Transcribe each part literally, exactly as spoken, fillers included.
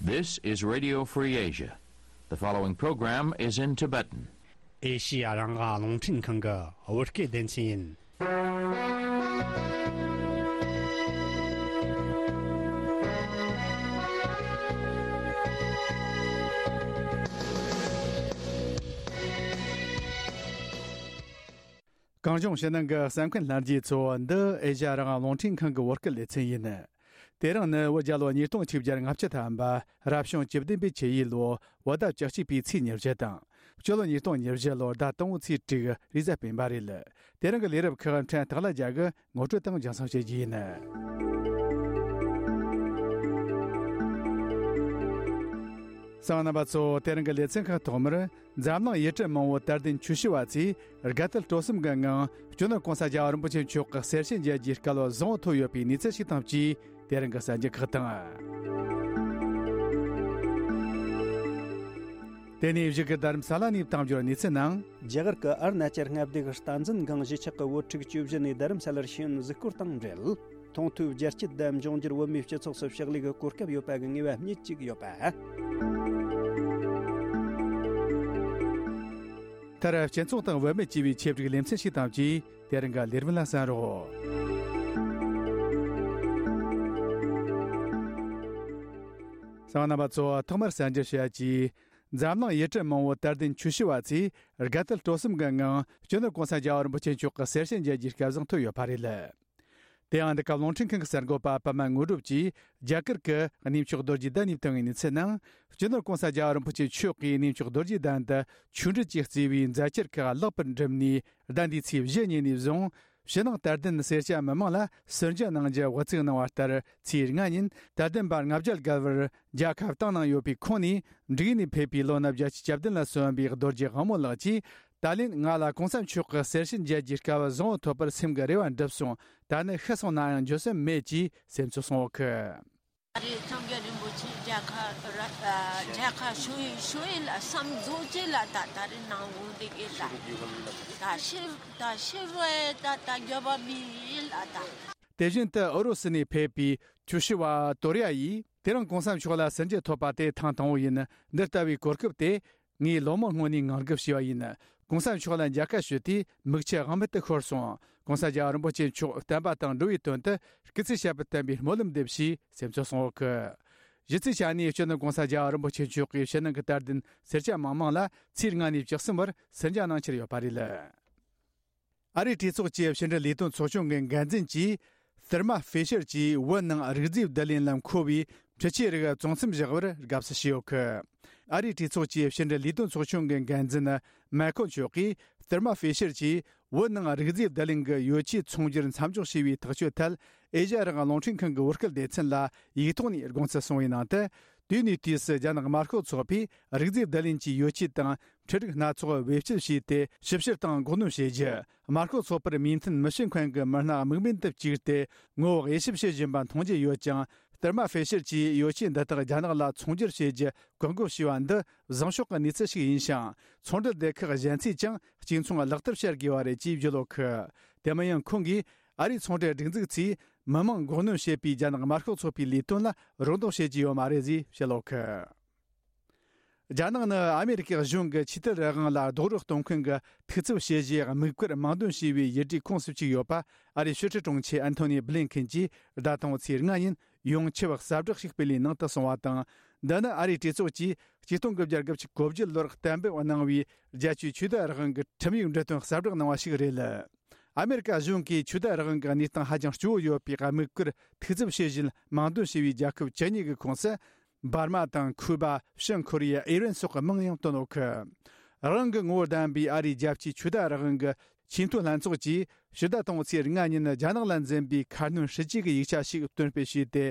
This is Radio Free Asia. The following program is in Tibetan. ཨེ་ཤི་ཡ་རང་དབང་རླུང་འཕྲིན་ཁང་གི་བོད་སྐད་སྡེ་ཚན་ཡིན། གངས་ལྗོངས་ཕྱི་ནང་གི་གསན་མཁན་ལྷན་རྒྱས་ཚོ། འདི་ཨེ་ཤ་ཡ་རང་དབང་རླུང་འཕྲིན་ཁང་གི་བོད་སྐད་སྡེ་ཚན་ཡིན། དེ་རིང་ནི་བོད་རྒྱལ་ལོ་ཉིས་སྟོང་ཆིག་བརྒྱ་ལྔ་བཅུ་ཐམ་པ། རབ་བྱུང་བཅུ་བདུན་པའི་ཆུ་ཡོས་ལོ། བོད་ཟླ་བཅུ་གཅིག་པའི་ཚེས་ཉེར་བཞི་དང་། སྤྱི་ལོ་ཉིས་སྟོང་ཉེར་བཞི་ལོར་ཟླ་དང་པོའི་ཚེས་དྲུག་རེས་གཟའ་སྤེན་པ་རེད། དེ་རིང་གི་ལས་རབས་ཁག་ཕྲན་སྟག་ལྷ་རྒྱལ་གྱིས་ངོ་སྤྲོད་དང་རྒྱང་སྲིང་བྱེད་རྒྱུ་ཡིན། གསན་མཁན་རྣམ་པ་ཚོ། དེ་རིང་གི་ལེ་ཚན་ཁག་ཐོག་མར། འཛམ་གླིང་ཡུལ་གྲུ་མང་པོའི་དད་ལྡན་ཆོས་ཞུ་བ་ཚོས་དགའ་དད་སྤྲོ་གསུམ་གྱི་ངང་། སྤྱི་ནོར་གོང་ས་རྒྱལ་བ་རིན་པོ་ཆེ་མཆོག་གི་གསེར་ཕྱེ་མཇལ་རྒྱུའི་སྐལ་བ་བཟང་པོ་ཐོབ་ཡོད་པའི་གནས་ཚུལ་ཞིག་དང་བཅས། དེ་རིང་གི་གསར་འགྱུར་ཁག་དང་། དེ་ནས་གཞུག་གི་རྡ་རམ་ས་ལ་ནས་དང་འབྱོར་གནས་ཚུལ་ནང་། རྒྱ་གར་གྱི་ཨ་རུ་ན་ཅལ་མངའ་སྡེ་གི་སྟངས་འཛིན་སྒང་གཞིས་ཆགས་ཀྱི་བོད་ཕྲུག་བཅུ་བཞི་ནས་རྡ་རམ་ས་ལར་ཤེས་ཡོན་གཟིགས་སྐོར་དང་འབྲེལ། མཐོང་ཐོས་རྒྱ་སྐྱེད་དང་འབྱུང་འགྱུར་བོད་མིའི་སྤྱི་ཚོགས་སུ་ཕྱག་ལས་ཀྱི་གོ་སྐབས་ཡོད་པ་གི་ངེས་པ་རྙེད་ཅིག་ཡོད་པ། མཐར་སྤྱི་ཚོགས་དང་བུད་མེད་ཅེས་པའི་ཆེད་བསྒྲིགས་ལེ་ཚན་ཞིག་དང་བཅས། དེ་རིང་གི་ལས་རིམ་ལ་གསན་རོགས། གསན་མཁན་རྣམ་པ་ཚོ། ཐོག་མར་གསར་འགྱུར་ཞུ་ཡ་གཅིག་འཛམ་གླིང་ཡུལ་གྲུ་མང་པོའི་དད་ལྡན་ཆོས་ཞུ་བ་ཚོས་དགའ་དད་སྤྲོ་གསུམ་གྱི་ངང་། སྤྱི་ནོར་གོང་ས་རྒྱལ་བ་རིན་པོ་ཆེ་མཆོག་གི་གསེར་ཕྱེ་མཇལ་རྒྱུའི་སྐལ་བཟང་ཐོབ་ཡོད་པ་རེད། དེ་ཡང་འདི་ག་རླུང་འཕྲིན་ཁང་གི་གསར་འགོད་པ་པདྨ་དངོས་གྲུབ་ཀྱིས་རྒྱ་གར་གྱི་གནས་མཆོག་རྡོ་རྗེ་གདན་ནས་བཏང་བའི་གནས་ཚུལ་ནང་། སྤྱི་ནོར་གོང་ས་རྒྱལ་བ་རིན་པོ་ཆེ་མཆོག་གིས་གནས་མཆོག་རྡོ་རྗེ་གདན་དུ་ཆོས་འབྲེལ་གྱིས་གཙོས་པའི་མཛད་འཆར་ཁག་ལེགས་པར་འགྲུབ་ནས། ཟླ་འདིའི་ཚེས་བཞི་ཉིན་ནས་བཟུང་། ཕྱི་ནང་དད་ལྡན་སེར་སྐྱ་མི་མང་ལ་གསོལ་ཇ་གནང་རྒྱུ་དབུ་འཛུགས་གནང་བ་ལྟར། ཚེས་ལྔ་ཉིན་དད་ལྡན་པ་ལྔ་བརྒྱ་བརྒལ་བར་རྒྱལ་ཁ་བཏང་གནང་ཡོད་པའི་ཁོངས་ནས། འབྲུག་ནས་ཕེབས་པའི་ལོ་ན་བརྒྱད་ཅུ་གྱ་བདུན་ལ་སོན་པའི་རྡོ་རྗེ་དབང་མོ་ལགས་ཀྱིས། ད་ལན་ང་ལ་གོང་ས་མཆོག་གི་གསེར་ཕྱེ་མཇལ་རྒྱུའི་སྐལ་བ་བཟང་པོ་ཐོབ་པར་སེམས་ཀྱི་རེ་བ་འགྲུབ་སོང་། ད་ནི་ཤི་སོང་ན་ཡང་འགྱོད་སེམས་མེད་ཅེས་སེམས་ཚོར་གསུངས་ཡོད་ཀི། ད་རེས་སངས་རྒྱས་རིན་པོ་ཆེ་མཇལ་ཁ་ར་ཨ་མཇལ་ཁ་ཞུ་ཡི་ཞུ་ཡི་ལ་བསམ་རྫོགས་ཅེ་ལ་ད་ད་རེས་ནང་འོང་དེ་གི་ལ་ད་ཤི་ད་ཤི་བའི་ད་ད་འགྱོད་པ་མི་ཡིན་ལ་ད། དེ་བཞིན་དུ་ཨུ་རུ་སུ་ནས་ཕེབས་པའི་ཆོས་ཞུ་བ་ཏོ་རི་ཡ་ཡིས། དེ་རིང་གོང་ས་མཆོག་ལ་གསོལ་ཇ་ཐོབ་པ་དེ་ཐེངས་དང་པོ་ཡིན། འདི་ལྟ་བུའི་གོ་སྐབས་དེ་ངས་ལོ་མང་སྔོན་ནས་ངང་སྒུག་བྱས་པ་ཡིན། གོང་ས་མཆོག་ལ་མཇལ་ཁ་ཞུས་དུས་མིག་ཆུ་དབང་མེད་དུ་ཤོར་སོང་། གོང་ས་རྒྱལ་བ་རིན་པོ་ཆེ་མཆོག་བསྟན་པ་དང་འགྲོ་བའི་དོན་དུ་སྐུ་ཚེ་ཞབས་པད་བརྟན་པའི་སྨོན་ལམ་འདེབས་ཞེས་སེམས་ཚོར་གསུངས་ཡོད་ཀི། གཞི་རྩའི་ཆ་ནས་སྤྱི་ནོར་གོང་ས་རྒྱལ་བ་རིན་པོ་ཆེ་མཆོག་གིས་ཕྱི་ནང་གི་དད་ལྡན་སེར་སྐྱ་མང་མང་ལ་ཚེས་ལྔ་ནས་བཅུ་གསུམ་བར་གསོལ་ཇ་གནང་འཆར་ཡོད་པ་རེད། ཨ་རིའི་གྲོས་ཚོགས་ཀྱི་ཕྱི་འབྲེལ་ལས་དོན་ཚོགས་ཆུང་གི་འགན་འཛིན་གྱིས། ཐེར་མ་ཧྥེ་ཤར་གྱིས་བོད་ནང་རིགས་རྫས་བསྡུ་ལེན་ལ་མཁོ་བའི་འཕྲུལ་ཆས་རིགས་བཙོང་མཚམས་བཞག་པར་དགའ་བསུ་ཞུས་ཡོད་ཀི། ཨ་རིའི་གྲོས་ཚོགས་ཀྱི་ཕྱི་འབྲེལ་ལས་དོན་ཚོགས་ཆུང་གི་འགན་འཛིན་མེ་ཁོ་མཆོག་གིས། ཐེར་མ་ཧྥེ་ཤར་གྱིས་བོད་ནང་རིགས་རྫས་བསྡུ་ལེན་གྱི་ཡོ་ཆས་ཚོང་སྒྱུར་མཚམས་འཇོག་བྱས་པའི་ཐག་གཅོད་ཐད། ཨེ་ཤ་ཡ་རང་དབང་རླུང་འཕྲིན་ཁང་གི་བོད་སྐད་སྡེ་ཚན་ལ་ཡིག་ཐོག་ནས་དགོངས་ཚུལ་གསུངས་པའི་ནང་དུ། དུས་ནས་དུས་སུ་རྒྱ་ནག་དམར་ཤོག་ཚོགས་པས་རིགས་རྫས་བསྡུ་ལེན་གྱི་ཡོ་ཆས་དང་འཕྲུལ་རིགས་སྣ་ཚོགས་བེད་སྤྱོད་བྱས་ཏེ། ཞིབ་བཤེར་དང་འགོག་སྣོན་བྱེད་རྒྱུ། དམར་ཤོག་ཚོགས་པར་མོས་མཐུན་མི་བྱེད་མཁན་གྱི་མི་སྣ་དམིགས་འབེན་དུ་བཅུག་སྟེ། ངོ་བོ་དབྱེ་ཞིབ་བྱེད་བཞིན་པ་མཐོང་རྒྱུ་ཡོད་ཀྱང་། ཐེར་མ་ཧྥེ་ཤར་གྱིས་ཡོ་ཆས་འདི་དག་རྒྱ་ནག་ལ་ཚོང་སྒྱུར་བྱེད་རྒྱུ་བཀག་འགོག་བྱས་པ་འདི། བཟང་ཕྱོགས་ཀྱི་གནས་ཚུལ་ཞིག་ཡིན་ཞིང་། ཚོང་འབྲེལ་སྡེ་ཁག་གཞན་ཚོས་ཀྱང་གཅིག་མཚུངས་ལག་བསྟར་བྱ་དགོས་པ་རེད་ཅེས་བརྗོད་ཡོད་ཀི། དེ་མིན་ཡང་ཁོང་གིས། ཨ་རིའི་ཚོང་འབྲེལ་སྒྲིག་འཛུགས་ཚོས་མི་མང་འགོག་གནོན་བྱེད་པའི་རྒྱ་ནག་དམར་ཤོག་ཚོགས་པའི་ལས་དོན་ལ་རོགས་འདེགས་བྱེད་ཀྱི་ཡོད་མ་རེད་ཅེས་བཤད་ཡོད་ཀི། རྒྱ་ནག་ནི་ཨ་མེ་རི་ཀའི་གཞུང་གི་ཆོས་དད་རང་དབང་ལ་རྡོག་རོལ་གཏོང་མཁན་གྱི་ཐུགས་འཚབ་བྱེད་གཞིའི་དམིགས་བཀར་དམངས་འདོན་བྱས་པའི་ཡུལ་གྲུའི་ཁོངས་སུ་བཅུག་ཡོད་པ། ཨ་རིའི་ཕྱི་སྲིད་དྲུང་ཆེ་ཨན་ཐོ་ནི་བྷི་ལིན་ཁིན་གྱིས་ཟླ་དང་པོའི་ཚེས་ལྔ་ཉིན་ཡོངས་ཁྱབ་གསལ་བསྒྲགས་ཤིག་སྤེལ་བའི་ནང་དུ་གསུངས་པ་དང་། འདི་ནི་ཨ་རིའི་གྲོས་ཚོགས་ཀྱིས་ཆིག་སྟོང་དགུ་བརྒྱ་དགུ་བཅུ་གོ་བརྒྱད་ལོར་གཏན་འབེབས་གནང་བའི་རྒྱལ་སྤྱིའི་ཆོས་དད་རང་དབང་གི་ཁྲིམས་ཡིག་འབྲི་དོན་གསལ་བསྒྲགས་གནང་བ་ཞིག་རེད། ཨ་མེ་རི་ཀ་གཞུང་གིས་ཆོས་དད་རང་དབང་གི་གནས་སྟངས་ཧ་ཅང་སྐྱོ་བོ་ཡོད་པའི་དམིགས་བཀར་ཐུགས་འཚབ་བྱེད་བཞིན་དམངས་འདོན་བྱས་པའི་རྒྱལ་ཁབ་བཅུ་གཉིས་ཀྱི་ཁོངས་སུ། འབར་མ་དང་ཁུ་པ། བྱང་ཁོ་རི་ཡ། ཨི་རན་སོགས་ཀྱི་མིང་ཡང་བཏོན་ཡོད་ཀི། རང་དབང་གི་ངོ་བོ་ལྡན་པའི་ཨ་རིའི་རྒྱལ་སྤྱིའི་ཆོས་དད་རང་དབང་གི་ཆེས་མཐོའི་ལྷན་ཚོགས་ཀྱིས་ཕྱི་ཟླ་དང་པོའི་ཚེས་ལྔ་ཉིན་རྒྱ་ནག་ལ་འཛིན་པའི་ཁ་སྣོན་སྲིད་ཇུས་ཀྱི་ཡིག་ཆ་ཞིག་གཏན་འབེབས་བྱས་ཏེ།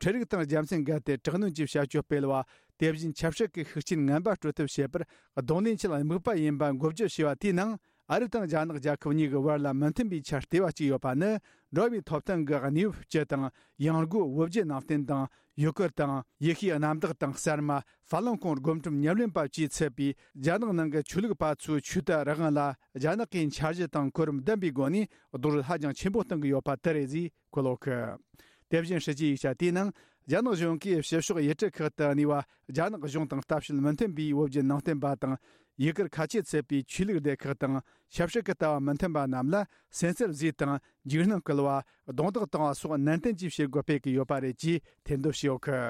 འཕྲུལ་རིག་དང་རྒྱལ་མཚན་འགལ་ཏེ་དྲག་གནོན་གྱི་བྱ་སྤྱོད་སྤེལ་བ། དེ་བཞིན་ཆབ་སྲིད་ཀྱི་ཤུགས་རྐྱེན་ངན་པ་སྤྲོད་ཐབས་བྱེད་པར་གདོང་ལེན་ཆེད་དམིགས་པ་ཡིན་པ་འགོག་བཅོས་བྱས་པ་དེའི་ནང་། ཨ་རི་དང་རྒྱ་ནག་རྒྱལ་ཁབ་གཉིས་ཀྱི་བར་ལ་མི་མཐུན་པའི་ཆར་ལྟེ་བ་གཅིག་ཡོད་པ་ནི། འགྲོ་བའི་ཐོབ་ཐང་གི་གནས་བབ་སྤྱི་དང་། ཡང་སྒོས་བོད་བརྒྱུད་ནང་བསྟན་དང་། ཡུལ་སྐོར་དང་། ཡེ་ཤུའི་གནམ་བདག་དང་གསར་མ། ཧྥ་ལུན་ཀུང་སྒོམ་སྒྲུབ་ཉམས་ལེན་པ་བཅས་ཚུད་པའི་རྒྱ་ནག་ནང་གི་ཆོས་ལུགས་པ་ཚོའི་ཆོས་དད་རང་དབང་ལ། རྒྱ་ནག་གིས་འཆར་གཞི་དང་གོ་རིམ་ལྡན་པའི་སྒོ་ནས་རྡོག་རོལ་ཧ་ཅང་ཆེན་པོ་གཏོང་གི་ཡོད་པ་དེ་རེད་ཅེས་འཁོད་ཡོད་ཀི། དེ་བཞིན་སྲིད་ཇུས་ཡིག་ཆ་དེའི་ནང་ རྒྱ་ནག་གཞུང་གིས་ཕྱི་ཕྱོགས་ཡུལ་གྲུ་ཁག་ཏུ་གནས་པ་རྒྱ་ནག་གཞུང་དང་ལྟ་བཤལ་མི་མཐུན་པའི་བོད་བརྒྱུད་ནང་བསྟན་པ་དང་ཡུལ་གར་ཁ་ཆེ་ཚུད་པའི་ཆོས་ལུགས་སྡེ་ཁག་དང་ཆབ་སྲིད་ཀྱི་ལྟ་བ་མི་མཐུན་པ་རྣམས་ལ་སེམས་འཚབ་བཟོས་དང་འཇིགས་སྣང་སྐུལ་བ། རྡུང་རྡེག་བཏང་བ་སོགས་ནན་ཏན་གྱིས་བྱེད་དགོས་སྤེལ་གྱི་ཡོད་པ་རེད་ཅེས་ཐེར་འདོན་བྱས་ཡོད་གི།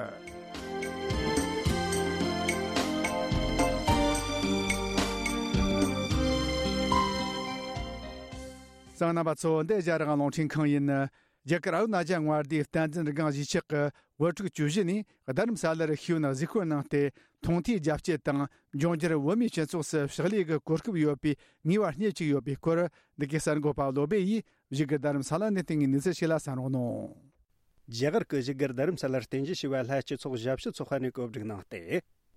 གསན་མཁན་རྣམ་པ་ཚོ། འདི་རྒྱ་རིགས་རླུང་འཕྲིན་ཁང་ཡིན། རྒྱ་གར་ཨ་རུ་ན་ཅལ་མངའ་སྡེའི་བསྟན་འཛིན་སྒང་གཞིས་ཆགས་ཀྱི་བོད་ཕྲུག་བཅུ་བཞི་ནས་རྡ་རམ་ས་ལར་ཤེས་ཡོན་གཟིགས་སྐོར་གནང་སྟེ། མཐོང་ཐོས་རྒྱ་སྐྱེད་དང་འབྱུང་འགྱུར་བོད་མིའི་སྤྱི་ཚོགས་སུ་ཕྱག་ལས་ཀྱི་གོ་སྐབས་ཡོད་པའི་ངེས་པ་རྙེད་བཅུག་ཡོད་པའི་སྐོར། འདི་གའི་གསར་འགོད་པ་བློ་སྦེ་ཡིས་བཞུགས་སྒར་རྡ་རམ་ས་ལ་ནས་བཏང་བའི་གནས་ཚུལ་ཞིག་ལ་གསན་རོགས་གནང་། རྒྱ་གར་གྱི་བཞུགས་སྒར་རྡ་རམ་ས་ལར་རྟེན་གཞི་བྱས་པའི་ལྷ་སྤྱི་ཚོགས་ཞབས་ཞུ་ཚོགས་པ་ནས་གོ་སྒྲིག་གནང་སྟེ།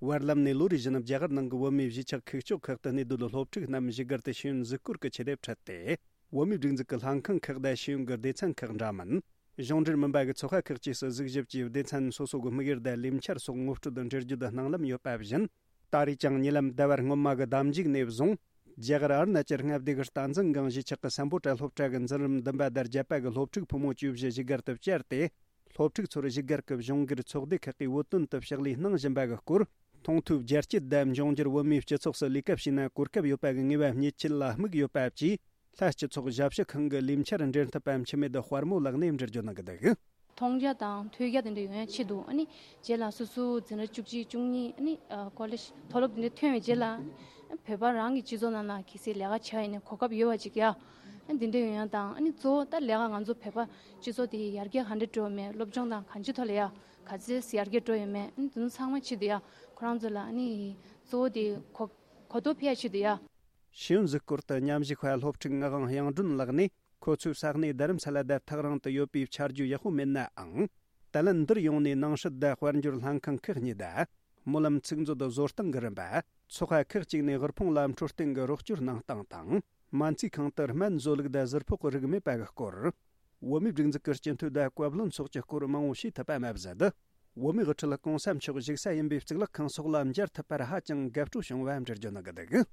བར་ལམ་ནས་ལོ་རེ་བཞིན་རྒྱ་གར་ནང་གི་བོད་མིའི་གཞིས་ཆགས་ཁུག་ཀྱོག་ཁག་ཏུ་གནས་སྡོད་སློབ་ཕྲུག་རྣམས་བཞུགས་སྒར་དུ་ཤེས་ཡོན་གཟིགས་སྐོར་གྱི་ཆེད་དུ་ཁྲིད་དེ། བོད་མིའི་སྒྲིག་འཛུགས་ཀྱི་ལྷན་ཁང་ཁག་དང་ཤེས་ཡོན་གྱི་སྡེ་ཚན་ཁག་འདྲ་མིན། གཞུང་འབྲེལ་མིན་པ་གི་ཚོགས་པ་ཁག་བཅས་སུ་གཟིགས་ཞིབ་ཀྱིས་སྡེ་ཚན་སོ་སོ་གི་དམིགས་ཡུལ་དང་ལས་འཆར་སོགས་ངོ་སྤྲོད་དང་འགྲེལ་བརྗོད་གནང་ལམ་ཡོད་པ་བཞིན། ད་རེས་ཀྱང་ཉེ་ལམ་ཟླ་བ་སྔོན་མ་གི་ཟླ་མཇུག་ནས་བཟུང་། རྒྱ་གར་ཨ་རུ་ན་ཅལ་མངའ་སྡེ་གི་སྟག་འཛིན་སྒང་གཞིས་ཆགས་ཀྱི་སམ་བྷོ་ཊ་སློབ་གྲྭ་གི་འཛིན་རིམ་བདུན་པ་དང་བརྒྱད་པ་གི་སློབ་ཕྲུག་ཕོ་མོ་བཅུ་བཞི་བཞུགས་སྒར་དུ་བཅར་ཏེ། སློབ་ཕྲུག་ཚོར་བཞུགས་སྒར་གྱི་གཞུང་སྒེར་ཚོགས་སྡེ་ཁག་གིས་བོད་དོན་དུ་ཕྱག་ལས་གནང་བཞིན་པ་གི་སྐོར། མཐོང་ཐོས་རྒྱ་སྐྱེད་དང་འབྱུང་འགྱུར་བོད་མིའི་སྤྱི་ཚོགས་སུ་ལས་ཀ་བྱས་ན་གོ་སྐབས་ཡོད་པ་གི་ངེས་པ་རྙེད་ཆེད་ལ་དམིགས་ཡོད་པ་བཅས། ལྷ་སྤྱི་ཚོགས་ཞབས་ཞུ་ཁང་གི་ལས་འཆར་འབྲེལ་མཐུད་པ་འཆི་མེད་དཔལ་མོ་ལགས་ནས་འགྲེལ་བརྗོད་གནང་གི་འདུག། མཐོང་རྒྱ་དང་ཐོས་རྒྱ་དེ་འདྲ་ཡོང་ཡ་ཆེད་དུ། ཨ་ནི་རྗེས་ལ་སོ་སོ་འཛིན་གྲྭ་བཅུ་གཅིག་བཅུ་གཉིས། ཨ་ནི་ཨ་ཀོ་ལེཇ་མཐོ་སློབ་དེ་འདྲ་ཐོན་བའི་རྗེས་ལ། ཨ་ནི་བོད་པ་རང་གི་སྤྱི་ཚོགས་ནང་ལ་གལ་སྲིད་ལས་ཀ་བྱ་ཡིན་ན་གོ་སྐབས་ཡོད་པ་ཅིག་ཡ། ཨ་ནི་དེ་འདྲ་ཡོང་ཡ་དང་། ཨ་ནི་གཙོ་བོ་ད་ལས་ཀ་ང་ཚོ་བོད་པ་སྤྱི་ཚོགས་དེ་ཡར་རྒྱས་ག་འདྲ་འགྲོ་མེད། སློབ་སྦྱོང་དང་གང་ཅིའི་ཐོག་ལ་ཡ་ག་ཚད་ཡར་རྒྱས་འགྲོ་ཡོད་མེད། ཨ་ནི་དེ་ཚོ་ཚང་མ་ཆེད་དུ་ཡ། ཁོ་རང་ཚོ་ལ་ཨ་ནི་གཙོ་བོ་དེ་གོ་གོ་རྟོགས་འཕེལ་ཡ་ཆེད་དུ་ཡ། ཤེས་ཡོན་གཟིགས་སྐོར་དུ་མཉམ་ཞུགས་པ་སློབ་ཕྲུག་ངག་དབང་དབྱངས་སྒྲོན་ལགས་ནས། ཁོ་ཚོའི་ས་གནས་རྡ་རམ་ས་ལ་དང་ཐག་རིང་དུ་ཡོད་པའི་ཆ་རྒྱུས་ཡག་པོ་མེད་ནའང་། ད་ལན་འདིར་ཡོང་ནས་ནང་སྲིད་དང་དཔལ་འབྱོར་ལྷན་ཁང་ཁག་གཉིས་དང་། སྨོན་ལམ་ཚིག་མཛོད་བཟོ་སྟངས་ཀྱི་རིམ་པ། ཚོགས་པ་ཁག་ཅིག་ནས་དབུལ་ཕོངས་ལ་འཕྲོད་བསྟེན་གྱི་རོགས་སྐྱོར་གནང་སྟངས་དང་། སྨན་རྩིས་ཁང་དུ་སྨན་བཟོ་ལུགས་དང་ཟུར་ཕོགས་རིགས་མེད་པ་གི་སྐོར། བོད་མིའི་སྒྲིག་འཛུགས་ཀྱི་སྤྱི་འཐུས་དང་བཀའ་བློན་སོགས་ཀྱི་སྐོར་མང་བོ་ཤེས་ཐུབ་པ་མ་ཟད། བོད་མིའི་དབུ་ཁྲིད་གོང་ས་མཆོག་བཞུགས་ས་ཡིན་པའི་གཙུག་ལག་ཁང་སོགས་ལ་མཇལ་ཐུབ་པར་ཧ་ཅང་དགའ་སྤྲོ་བྱུང་བ་འགྲེལ་བརྗོད་གནང་གི་འདུག།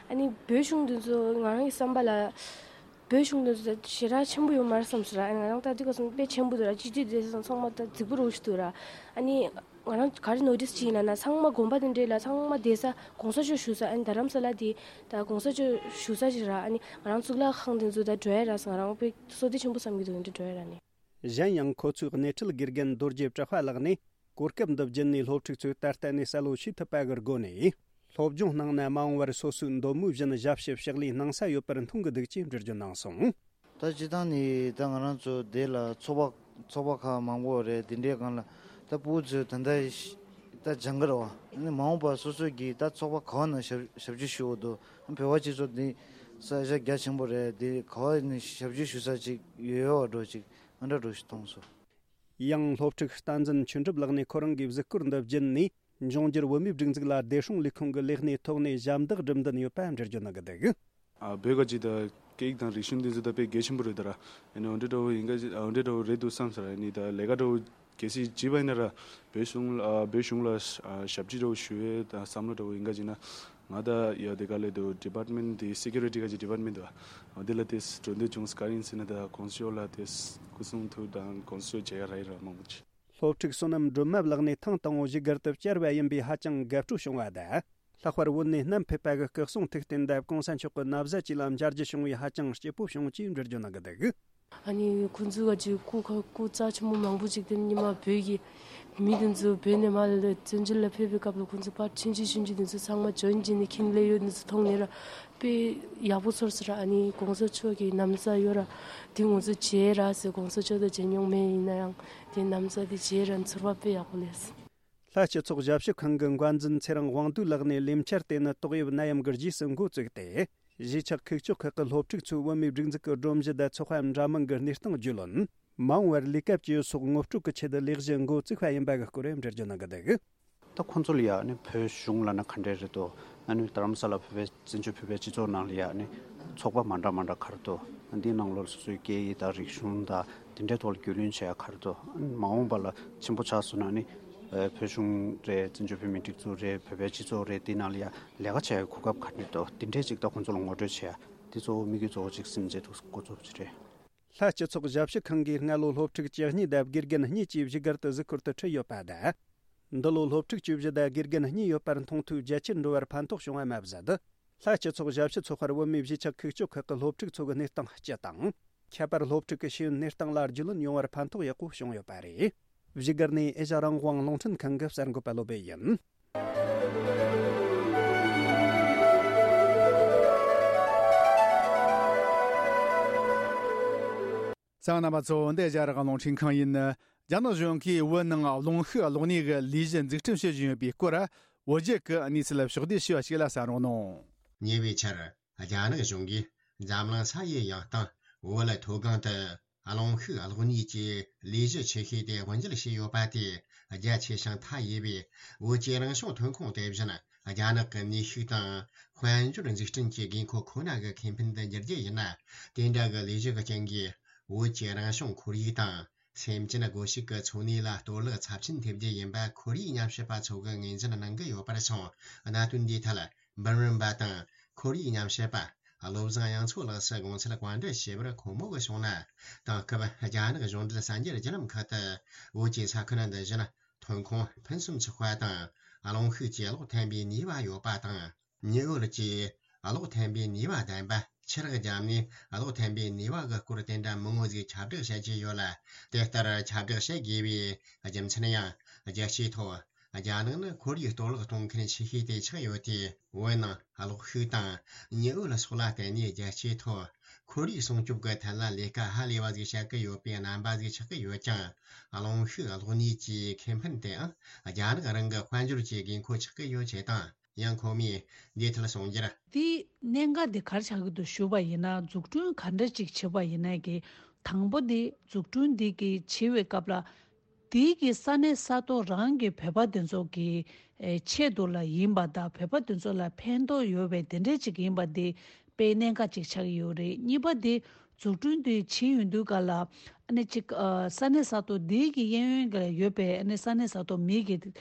ཨ་ནི་བོད་གཞུང་འདི་ཚོ་ང་རང་གི་བསམ་པ་ལ། བོད་གཞུང་འདི་ཚོ་ཞེ་དྲག་ཆེན་པོ་ཡོད་མ་རེད་བསམ་སོང་ར། ཨ་ནི་ང་རང་ལྟ་དུས་ཀ་སོང་དཔེ་ཆེན་པོ་འདུག་ར། སྤྱི་འཐུས་དེ་ཚོ་ཚང་མ་ད་རྫིག་པོ་རང་ཞིག་འདུག་ར། ཨ་ནི་ང་རང་ག་རེ་ནོ་ཊིས་བྱས་ཡིན་ལབ་ན། ཚང་མ་དགོན་པ་དེ་འདྲས་ལ་ཚང་མ་བསྡད་ས་གོང་ས་མཆོག་བཞུགས་ས། ཨ་ནི་རྡ་རམ་ས་ལ་དེ་ད་གོང་ས་མཆོག་བཞུགས་ས་ཞིག་ར། ཨ་ནི་ང་རང་གཙུག་ལག་ཁང་དེ་ཚོ་ད་འགྲོ་ཡ་ར་ཟེར། ང་རང་དཔེ་བསོད་བདེ་ཆེན་པོ་བསམ་གྱི་འདུག་འདི་འགྲོ་ཡ་ར་ནི། གཞན་ཡང་ཁོ་ཚོའི་སྣེ་ཁྲིད་དགེ་རྒན་རྡོ་རྗེ་གྲགས་པ་ལགས་ནས། གོ་སྐབས་འདི་བརྒྱུད་ནས་སློབ་ཕྲུག་ཚོས་ད་ལྟ་ནས་བསམ་བློ་ཞིག་ཐུབ་པ་གི་སྒོ་ནས། སློབ་སྦྱོང་གནང་ན་མ་འོངས་པར་སོ་སོའི་འདོད་མོས་བཞིན་ཞབས་ཞུ་ཕྱག་ལས་གནང་ས་ཡོད་པར་མཐོང་གི་འདུག་ཅེས་འགྲེལ་བརྗོད་གནང་སོང་། ད་སྤྱིར་བཏང་ནས་ད་ང་རང་ཚོ་འདི་ལ་ཚོགས་པ་ཚོགས་པ་ཁག་མང་པོ་རེད། འདི་འདྲའི་སྒང་ལ་ད་ཕྲུ་གུ་ཚོས་ད་ལྟ་ད་སྦྱང་གི་རེད་བ། ཨ་ནི་མ་འོངས་པར་སོ་སོ་གིས་ད་ཚོགས་པ་ག་བ་ནང་ཞབས་ཞབས་ཕྱི་ཞུ་དགོས་འདུག། བོད་པ་སྤྱི་ཚོགས་འདི་ས་ཆ་རྒྱ་ཆེན་པོ་རེད། འདི་ག་བ་ནས་ཞབས་ཕྱི་ཞུ་ས་ཅིག་ཡོད་ཡོད་པ་འདྲ་ཅིག་ཨ་འདྲ་འདྲ་ཞིག་མཐོང་སོང་། ཡང་སློབ་ཕྲུག་བསྟན་འཛིན་ཆོས་གྲུབ་ལགས་ནས་ཁོ་རང་གི་གཟིགས་སྐོར་འདི་བརྒྱུད་ནས། འབྱུང་འགྱུར་བོད་མིའི་སྒྲིག་འཛུགས་ལ་བདེ་སྲུང་ལས་ཁུངས་ཀྱི་ལས་སྣེའི་ཐོག་ནས་ཞབས་འདེགས་སྒྲུབ་འདུན་ཡོད་པ་འགྲེལ་བརྗོད་གནང་གི་འདུག། ཨ། བོད་ཀྱི་ད་སྐད་ཡིག་དང་རིག་གཞུང་འདི་ཚོ་ད་དཔེ་གལ་ཆེན་པོ་རེད་ད་ར། ཨ་ནི་འོ་འདྲ་འདྲ་བོ་ཡིན་ག། འོ་འདྲ་འདྲ་བོ་རེད་འདུག་བསམ་ས་ར། ཨ་ནི་ད་ལས་ཀ་འདྲ་བོ་གལ་སྲིད་བྱས་པ་ཡིན་ན་ར། བོད་གཞུང་ལ་ཨ། བོད་གཞུང་ལ་ཨ། ཞབས་ཕྱི་འདྲ་བོ་ཞུ་ཡས་ད་བསམ་བློ་འདྲ་བོ་ཡིན་ག་ཅིག་ན། ང་ད་ཡ་དེ་ག་ལས་དུ་ཌི་པཱར་ཊི་མེན་ཊི་དེ་སི་ཀུ་རི་ཊི་ག་ཅིག་ཌི་པཱར་ཊི་མེན་ཊི་དུ་ཨ། དེ་ལ་དེ་གྲོས་འདེབས་བྱུང་ས་ག་རེ་ཡིན་ཟེར་ན། ད་གོང་ས་མཆོག་ལ་དེ་སྐུ་གསུང་ཐུགས་དང་དགོངས་སེལ་བྱེད་ཡ་ར་ཡིན་ར་མང་པོ་ཅིག། སློབ་ཕྲུག་བསོད་ནམས་སྒྲོལ་མ་ལགས་ནས་ཐེངས་དང་པོ་བཞུགས་སྒར་དུ་བཅར་བ་ཡིན་པས་ཧ་ཅང་དགའ་སྤྲོ་བྱུང་བ་དང་། ལྷག་པར་བོད་ནས་བསྣམས་ཕེབས་པ་གི་སྐུ་གསུང་ཐུགས་རྟེན་དང་གོང་ས་མཆོག་གི་ན་བཟའ་བཅས་ལ་མཇལ་རྒྱུ་བྱུང་བས་ཧ་ཅང་སྐྱིད་པོ་བྱུང་ཅེས་འགྲེལ་བརྗོད་གནང་གི་འདུག། ཨ་ནི་ཁོང་ཚོ་ག་ཅིག་སྐུ་ཁ་སྐུ་རྩ་ཆེན་པོ་མང་པོ་ཅིག་དེ་ཉི་མ་བོད་ཀྱི་མི་དེ་ཚོ་བོད་ནས་མར་ལ་བཙན་བྱོལ་ལ་ཕེབས་པའི་སྐབས་ལ་ཁོང་ཚོ་ཕར་ཆུང་ཆུང་ཆུང་ཆུང་དེ་ཚོ་ཚང་མ་འཇོན་བྱས་ནས་ཁྱིམ་སླེབས་ཡོད་དེ་ཚོ་མཐོང་ནས་ར་དཔེ་ཡག་པོ་ཚོར་སོང་ར། ཨ་ནི་གོང་ས་མཆོག་གི་ན་བཟའ་ཡོད་ར། དེ་ང་ཚོ་མཇལ་ར་ཟེར། གོང་ས་མཆོག་དང་མཇལ་མྱོང་མེད། ཡིན་ན་ཡང་དེ་ན་བཟའ་དེ་མཇལ་ར་ཚོར་བ་དཔེ་ཡག་པོ་སླེབས་སོང་། ལྷ་སྤྱི་ཚོགས་ཞབས་ཞུ་ཁང་གི་འགན་འཛིན་ཚེ་རིང་དབང་འདུས་ལགས་ནས་ལས་འཆར་དེ་ནི་ཏོག་དབྱིབས་ནད་ཡམས་ཀྱི་རྗེས་སུ་འགོ་བཙུགས་ཏེ། གཞིས་ཆགས་ཁུག་ཀྱོག་ཁག་གི་སློབ་ཕྲུག་ཚོས་བོད་མིའི་སྒྲིག་འཛུགས་ཀྱི་སྒྲོམ་གཞི་དང་ཚོགས་པ་འདྲ་མིན་གྱི་གནས་སྟངས་རྒྱུས་ལོན། མ་འོངས་པར་ལས་ཀ་བྱེད་ཡུལ་སོགས་ངོ་སྤྲོད་ཀྱི་ཆེད་དུ་ལས་གཞི་འགོ་བཙུགས་པ་ཡིན་པ་གི་སྐོར་འགྲེལ་བརྗོད་གནང་གི་འདུག། ད་ཁོང་ཚོ་ལ་ཡ་ནི་བོད་གཞུང་ལབ་ན་ག་འདྲས་རེད་དོ། ཨ་ནི་རྡ་རམ་ས་ལ་བོད་པའི་བཙན་བྱོལ་བོད་པའི་སྤྱི་ཚོགས་ནང་ལ་ཡ་ནི་ཚོགས་པ་མ་འདྲ་མ་འདྲ་ག་རེ་འདུག། འདིའི་ནང་ལོགས་སོ་སོའི་སྐད་ཡིག་དང་རིག་གཞུང་དང་དེ་འདྲའི་ཐོག་ལ་རྒྱུས་ལོན་བྱེད་ཡ་ག་རེ་འདུག། མ་འོངས་པ་ལ་ཆེན་པོ་ཆགས་སོང་ན་ནི་བོད་གཞུང་རེད། བཙན་བྱོལ་བོད་མིའི་སྒྲིག་འཛུགས་རེད། བོད་པའི་སྤྱི་ཚོགས་རེད། དེའི་ནང་ལ་ཡ་ལས་ཀ་བྱེད་ཡ་གོ་སྐབས་ག་འདྲས་འདུག། དེ་འདྲས་ཅིག་ད་ཁོང་ཚོ་ལ་ངོ་སྤྲོད་བྱེད་ཡ་དེ་གཙོ་བོ་དམིགས་ཡུལ་གཙོ་བོ་ཅིག་ཟིན་བྱས་འདུག། འགོ་འཛུགས་ཀྱི་རེད། ལྷ་སྤྱི་ཚོགས་ཞབས་ཞུ་ཁང་གིས་སྔ་ལོ་སློབ་ཕྲུག་བཅུ་གཉིས་དང་དགེ་རྒན་གཉིས་ཀྱི་བཞུགས་སྒར་དུ་གཟིགས་སྐོར་དུ་ཁྲིད་ཡོད་པ་དང་། འདི་ལོ་སློབ་ཕྲུག་བཅུ་བཞི་དང་དགེ་རྒན་གཉིས་ཡོད་པར་མཐོང་ཐོས་རྒྱ་ཆེར་འགྲོ་བར་ཕན་ཐོགས་བྱུང་བ་མ་ཟད། ལྷ་སྤྱི་ཚོགས་ཞབས་ཞུ་ཚོགས་པར་བོད་མིའི་གཞིས་ཆགས་ཁུག་ཀྱོག་ཁག་གི་སློབ་ཕྲུག་ཚོ་གི་གནས་སྟངས་སྤྱི་དང་། ཁྱད་པར་སློབ་ཕྲུག་གི་ཤེས་ཡོན་གནས་སྟངས་ལ་རྒྱུས་ལོན་ཡོང་བར་ཕན་ཐོགས་ཡག་པོ་བྱུང་ཡོད་པ་རེད། བཞུགས་སྒར་ནས་ཨེ་ཤ་རང་དབང་རླུང་འཕྲིན་ཁང་གི་གསར་འགོད་པ་བློ་བྷེ་ཡིན། གསན་མཁན་རྣམ་པ་ཚོ། འདི་ཨེ་ཤ་ཡ་རང་དབང་རླུང་འཕྲིན་ཁང་ཡིན། རྒྱ་ནག་གཞུང་གིས་བོད་ནང་རླུང་ཤུགས་གློག་བརྙན་གྱི་ལས་གཞི་འཛུགས་སྐྲུན་བྱེད་བཞིན་ཡོད་པའི་སྐོར། བོད་རྒྱ་གི་གནས་ཚུལ་ཕྱོགས་བསྡུས་ཞུས་པ་ཞིག་ལ་གསན་རོགས་གནང་། ཉེ་བའི་ཆར། རྒྱ་ནག་གཞུང་གིས་འཛམ་གླིང་ས་ཡི་ཡང་སྟེང་བོད་ལ་མཐོ་སྒང་དུ་རླུང་ཤུགས་གློག་བརྙན་གྱི་ལས་གཞི་ཆེ་ཤོས་དེ་དབུ་འབྱེད་བྱས་ཡོད་པ་དེ་རྒྱ་ཆེ་ཞིང་མཐའ་ཡས་པའི་བོད་ཀྱི་རང་བྱུང་ཐོན་ཁུངས་དེ་བཞིན་རྒྱ་ནག་གི་ནུས་ཤུགས་དང་དཔལ་འབྱོར་འཛུགས་སྐྲུན་གྱི་དགོས་མཁོ་ཁོ་ན་གི་ཁེ་ཕན་དུ་འགྱུར་རྒྱུ་ཡིན་ན། དེ་འདྲ་གི་ལས་གཞི་གི་རྐྱེན་གྱིས་བོད་ཀྱི་རང་བྱུང་ཁོར་ཡུག་དང་། སེམས་ཅན་སྒོ་ཕྱུགས་ཀྱི་འཚོ་གནས་ལ་གཏོར་བརླག་ཚབས་ཆེན་ཐེབས་རྒྱུ་ཡིན་པ་ཁོར་ཡུག་ཉམས་ཞིབ་པ་ཚོ་གིས་ངོས་འཛིན་གནང་གི་ཡོད་པར་སོང་། གནད་དོན་འདིའི་ཐད་འབུམ་རམས་པ་དང་ཁོར་ཡུག་ཉམས་ཞིབ་པ་བློ་བཟང་དབྱངས་མཚོ་ལགས་སུ་དགོངས་ཚུལ་བཀའ་འདྲི་ཞུས་པར། ཁོང་མོ་གིས་གསུངས་ན། དེང་སྐབས་རྒྱ་ནག་གཞུང་འབྲེལ་གསར་འགྱུར་བརྒྱུད་ལམ་ཁག་ཏུ་བོད་ཀྱི་ས་ཁུལ་འདི་བཞིན་ཐོན་ཁུངས་ཕུན་སུམ་ཚོགས་པ་དང་། རླུང་ཤུགས་ཀྱིས་གློག་འཐེན་པའི་ནུས་པ་ཡོད་པ་དང་། ཉི་འོད་ཀྱིས་གློག་འཐེན་པའི་ནུས་པ་ལྡན་པ། ཆུ་རགས་བརྒྱབ་ནས་གློག་འཐེན་པའི་ནུས་པ་གི་སྐོར་དེ་འདྲ་མང་བོ་ཟིག་ཁྱབ་བསྒྲགས་བྱེད་ཀྱི་ཡོད་ལ། དེ་ལྟར་ཁྱབ་བསྒྲགས་བྱེད་དགོས་པའི་རྒྱུ་མཚན་ཡང་། རྒྱལ་སྤྱིའི་ཐོག་རྒྱ་ནག་ནི་ཁོར་ཡུག་གཏོར་བརླག་གཏོང་མཁན་ཆེ་ཤོས་དེ་ཆགས་ཡོད་དུས། བོད་ནང་གློག་ཤུགས་དང་ཉི་འོད་ལ་སོགས་ལ་བརྟེན་ནས་རྒྱལ་སྤྱིའི་ཐོག་ཁོར་ཡུག་སྲུང་སྐྱོབ་ཀྱི་ཐད་ལ་ལས་ཀ་ཧ་ལས་པ་ཟིག་བྱེད་ཀྱི་ཡོད་པའི་རྣམ་པ་ཟིག་ཆགས་ཀྱི་ཡོད་ཀྱང་། རླུང་ཤུགས་གློག་བརྙན་གྱི་ཁེ་ཕན་དེའང་རྒྱ་ནག་རང་གི་དཔལ་འབྱོར་གྱི་དགོས་མཁོ་ཆགས་ཀྱི་ཡོད་ཅེས་དང་། ཡང་ཁོ་མོས་འདིའི་ཐད་གསུངས་རྒྱུར། དེའི་གནད་འགག་དེ་ག་རེ་ཆགས་ཀྱི་འདུག་ཞུས་པ་ཡིན་ན། འཛུགས་སྐྲུན་ག་འདྲ་ཅིག་བྱེད་པ་ཡིན་ན་གི། དང་པོ་དེ་འཛུགས་སྐྲུན་དེ་གི་བྱེད་པའི་སྐབས་ལ། དེའི་གི་ས་གནས་ས་ཐོག་རང་གི་བོད་པ་དེ་ཚོ་གི་ཨེ་ཆེད་དུ་ལ་ཡིན་པ་དང་། བོད་པ་དེ་ཚོ་ལ་ཕན་ཐོགས་ཡོད་པའི་དེ་འདྲས་ཅིག་ཡིན་པ་དེ་དཔེ་གནད་འགག་ཅིག་ཆགས་ཀྱི་ཡོད་རེད། གཉིས་པ་དེ། འཛུགས་སྐྲུན་དེ་བྱེད་ཡོང་དུས་ག་ལ། ཨ་ནི་གཅིག་ཨ། ས་གནས་ས་ཐོག་དེའི་གི་གཡས་གཡོན་ག་ལ་ཡོད་པའི་ཨ་ནི་ས་གནས་ས་ཐོག་མི་གི་ཨ།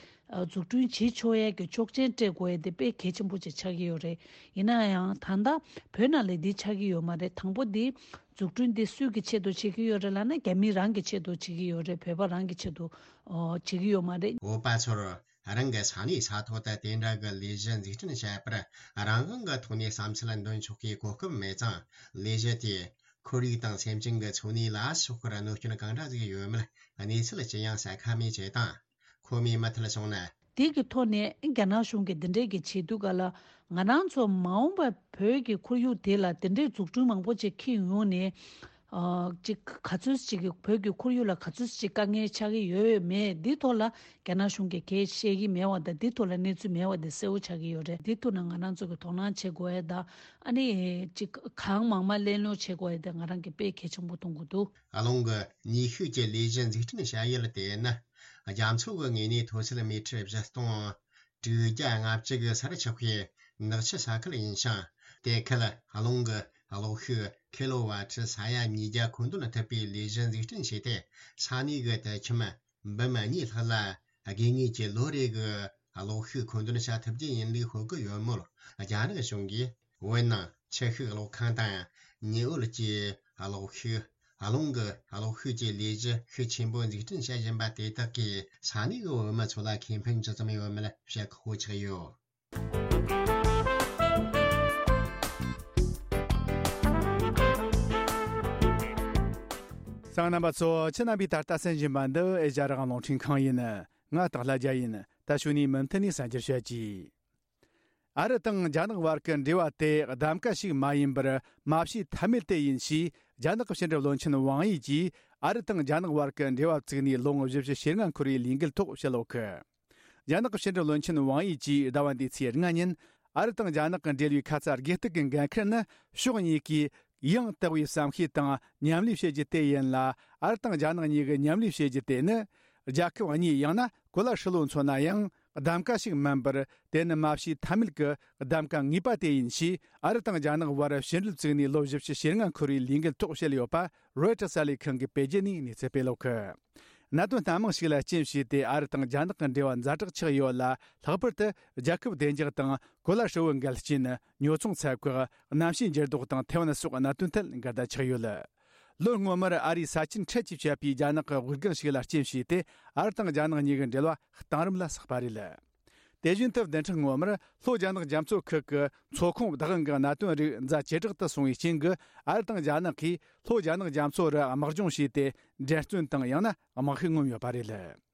འཛུགས་སྐྲུན་བྱེད་ཆོག་ཡས་ཀྱི་ཆོག་མཆན་སྤྲད་དགོས་ཡས་དེ་དཔེ་གལ་ཆེན་པོ་ཅིག་ཆགས་ཀྱི་ཡོད་རེད། ཡིན་ན་ཡང་ད་ལྟ་བོད་ནང་ལ་འདི་ཆགས་ཀྱི་ཡོད་མ་རེད། དང་པོ་འདི་འཛུགས་སྐྲུན་འདི་སུའི་གི་ཆེད་དུ་བྱེད་ཀྱི་ཡོད་རེད་ལབ་ན། རྒྱ་མི་རང་གི་ཆེད་དུ་བྱེད་ཀྱི་ཡོད་རེད། བོད་པ་རང་གི་ཆེད་དུ་ཨོ། བྱེད་ཀྱི་ཡོད་མ་རེད། བོད་པ་ཚོར་རང་གི་ས་གནས་ས་ཐོག་ཏུ་དེ་འདྲ་གི་ལས་གཞི་འཛུགས་སྐྲུན་བྱེད་པར་རང་དབང་གི་ཐོག་ནས་བསམ་ཚུལ་འདོན་ཆོག་གི་གོ་སྐབས་མེད་ཙང་། ལས་གཞི་དེས་ཁོར་ཡུག་དང་སེམས་ཅན་གྱི་འཚོ་གནས་ལ་ཕྱོགས་ཁར་གནོད་སྐྱོན་གང་འདྲ་ཟིག་ཡོད་མེད་གནས་ཚུལ་ཅི་ཡང་གསལ་ཁ་མེད་ཅེས་དང་། ཁོ་མོས་མུ་མཐུད་གསུངས་ན། དེ་གི་ཐོག་ནས་རྒྱ་ནག་གཞུང་གིས་འདི་འདྲས་ཀྱི་བྱེད་དུས་ག་ལ། ང་རང་ཚོ་མ་འོངས་པ་བོད་ཀྱི་ཁོར་ཡུག་དེ་ལ་འདི་འདྲས་འཛུགས་སྐྲུན་མང་པོ་ཅིག་འཁྱེར་ཡོང་ནས། ཨ། ཅིག་ག་ཚོད་ཅིག་གི་བོད་ཀྱི་ཁོར་ཡུག་ལ་ག་ཚོད་ཅིག་དཀའ་ངལ་ཆགས་ཀྱི་ཡོད་མེད་འདི་ཐོག་ལ་རྒྱ་ནག་གཞུང་གིས་གང་ཡང་བཤད་ཀྱི་མེད་པ་དང་། འདི་ཐོག་ལ་གནས་ཚུལ་མེད་པ་དེ་གསལ་པོ་ཆགས་ཀྱི་ཡོད་རེད། འདི་ཐོག་ན་ང་རང་ཚོ་གིས་དོ་སྣང་བྱེད་དགོས་ཡས་དང་། ཨ་ནི་ཅིག་གང་མང་མང་གླེང་སློང་བྱེད་དགོས་ཡས་དེ་ང་རང་གིས་དཔེ་གལ་ཆེན་པོ་མཐོང་གི་འདུག། རླུང་གི་ནུས་ཤུགས་ཀྱི་ལས་གཞི་འཛུགས་སྐྲུན་བྱ་ཡུལ་དེ་ནི། རྒྱ་མཚོ་གི་ངོས་ནས་མཐོ་ཚད་མི་ཊར་བཞི་སྟོང་དྲུག་བརྒྱ་ལྔ་བཅུ་གི་སར་ཆགས་པའི་ནགས་ཆུ་ས་ཁུལ་ཡིན་ཞིང་། དེ་ཁུལ་རླུང་གི་གློག་ཤུགས་ཁི་ལོ་ཝ་ཊི་ས་ཡ་ཉིས་བརྒྱ་མཁོ་འདོན་ཐུབ་པའི་ལས་གཞི་འཛུགས་སྐྲུན་བྱས་ཏེ། ས་གནས་གི་དུད་ཁྱིམ་འབུམ་གཉིས་ལྷག་ལ་དགོས་ངེས་ཀྱི་ལོ་རེ་གི་གློག་ཤུགས་མཁོ་འདོན་བྱ་ཐུབ་རྒྱུ་ཡིན་ལུགས་ཤོད་ཀྱི་ཡོད་མོད། རྒྱ་ནག་གཞུང་གིས་བོད་ནང་ཆུ་ཤུགས་གློག་ཁང་དང་། ཉི་འོད་ཀྱི་གློག་ཤུགས། རླུང་གི་གློག་ཤུགས་ཀྱི་ལས་གཞི་ཤུགས་ཆེན་པོ་འཛུགས་སྐྲུན་བྱེད་བཞིན་པ་དེ་དག་གིས་ས་གནས་ཀྱི་བོད་མི་ཚོ་ལ་ཁེ་ཕན་ཇི་ཙམ་ཡོད་མེད་བཤད་ཁག་པོ་ཆགས་ཡོད། གསན་མཁན་རྣམ་པ་ཚོ། ཁྱེད་རྣམ་པས་ད་ལྟ་གསན་བཞིན་པ་འདི་ཨེ་ཤ་ཡ་རང་དབང་རླུང་འཕྲིན་ཁང་ཡིན། ང་སྟག་ལྷ་རྒྱལ་ཡིན། ད་ཞུ་ནས་མུ་མཐུད་ནས་གསར་འགྱུར་བཤད་ཀྱི། ཨ་རི་དང་རྒྱ་ནག་བར་གྱི་འབྲེལ་བ་དེ་གདམ་ག་ཞིག་མ་ཡིན་པར་མ་བྱས་ཐབས་མེད་དེ་ཡིན་ཞེས། རྒྱ་ནག་གི་ཕྱི་འབྲེལ་བློན་ཆེན་ཝང་ཡི་གིས་ཨ་རི་དང་རྒྱ་ནག་བར་གྱི་འབྲེལ་བ་བཙུགས་ནས་ལོ་ངོ་བཞི་བཅུ་ཞེ་ལྔ་འཁོར་བའི་ལས་འགུལ་ཐོག་བཤད་ཡོད་གི། རྒྱ་ནག་གི་ཕྱི་འབྲེལ་བློན་ཆེན་ཝང་ཡི་གིས་ཟླ་བ་འདིའི་ཚེས་ལྔ་ཉིན། ཨ་རི་དང་རྒྱ་ནག་གི་འབྲེལ་བའི་ཁ་ཚ་དགོས་གཏུག་གི་འགན་ཁུར་ནི་ཕྱོགས་གཉིས་ཀས་ཡང་དག་པའི་བསམ་ཤེས་དང་མཉམ་ལས་བྱེད་རྒྱུ་དེ་ཡིན་ལ། ཨ་རི་དང་རྒྱ་ནག་གཉིས་ཀྱི་མཉམ་ལས་བྱེད་རྒྱུ་དེ་ནི། རྒྱལ་ཁབ་གཉིས་ཡང་ན་གོ་ལ་ཧྲིལ་བོ་མཚོན་ན་ཡང་གདམ་ག་ཞིག་མིན་པར། དེ་ནི་མ་བྱས་ཐབས་མེད་ཀྱི་གདམ་ག་ངེས་པ་དེ་ཡིན་ཞེས། ཨ་རི་དང་རྒྱ་ནག་བར་ཕྱི་འབྲེལ་བཙུགས་ནས་ལོ་བཞི་བཅུ་ཞེ་ལྔ་འཁོར་བའི་ལས་འགུལ་ཐོག་བཤད་ཡོད་པ། རོའི་ཊར་གསར་ལས་ཁང་གིས་སྤེལ་རྒྱུ་ནས་གནས་ཚུལ་སྤེལ་ཡོད་གི། གནད་དོན་སྣ་མང་ཞིག་ལ་རྐྱེན་བྱས་ཏེ། ཨ་རི་དང་རྒྱ་ནག་གི་འབྲེལ་བ་ཛ་དྲག་ཆགས་ཡོད་ལ། ལྷག་པར་དུ་རྒྱལ་ཁབ་བདེ་འཇགས་དང་གོ་ལ་ཧྲིལ་བོའི་འགལ་རྐྱེན། ཉོ་ཚོང་ཚད་བཀག་གནམ་གཤིས་འགྱུར་ལྡོག་དང་ཐའེ་ཝན་སོགས་གནད་དོན་ཐད་འགལ་ཟླ་ཆགས་ཡོད། ལོ་སྔོན་མར་ཨ་རིའི་ས་ཆེན་འཕྲལ་གྱིས་བཅད་པའི་རྒྱ་ནག་གི་དབུགས་སྒང་ཞིག་ལ་རྐྱེན་བྱས་ཏེ། ཨ་རི་དང་རྒྱ་ནག་གཉིས་ཀྱི་འབྲེལ་བ་གཏིང་རིམ་ལ་ཟགས་པ་རེད། དེ་བཞིན་དུ་བདུན་ཕྲག་སྔོན་མར་ལྷོ་རྒྱ་ནག་རྒྱ་མཚོ་ཁུལ་གྱི་མཚོ་ཁོངས་བདག་དབང་གི་གནད་དོན་རིགས་མཛའ་ཇེ་དྲག་ཏུ་སོང་བའི་རྐྱེན་གྱིས། ཨ་རི་དང་རྒྱ་ནག་གིས་ལྷོ་རྒྱ་ནག་རྒྱ་མཚོ་རུ་དམག་སྦྱོང་བྱས་ཏེ། འགྲན་རྩོད་དང་ཡང་ན་དམག་ཤུགས་མངོན་ཡོད་པ་རེད།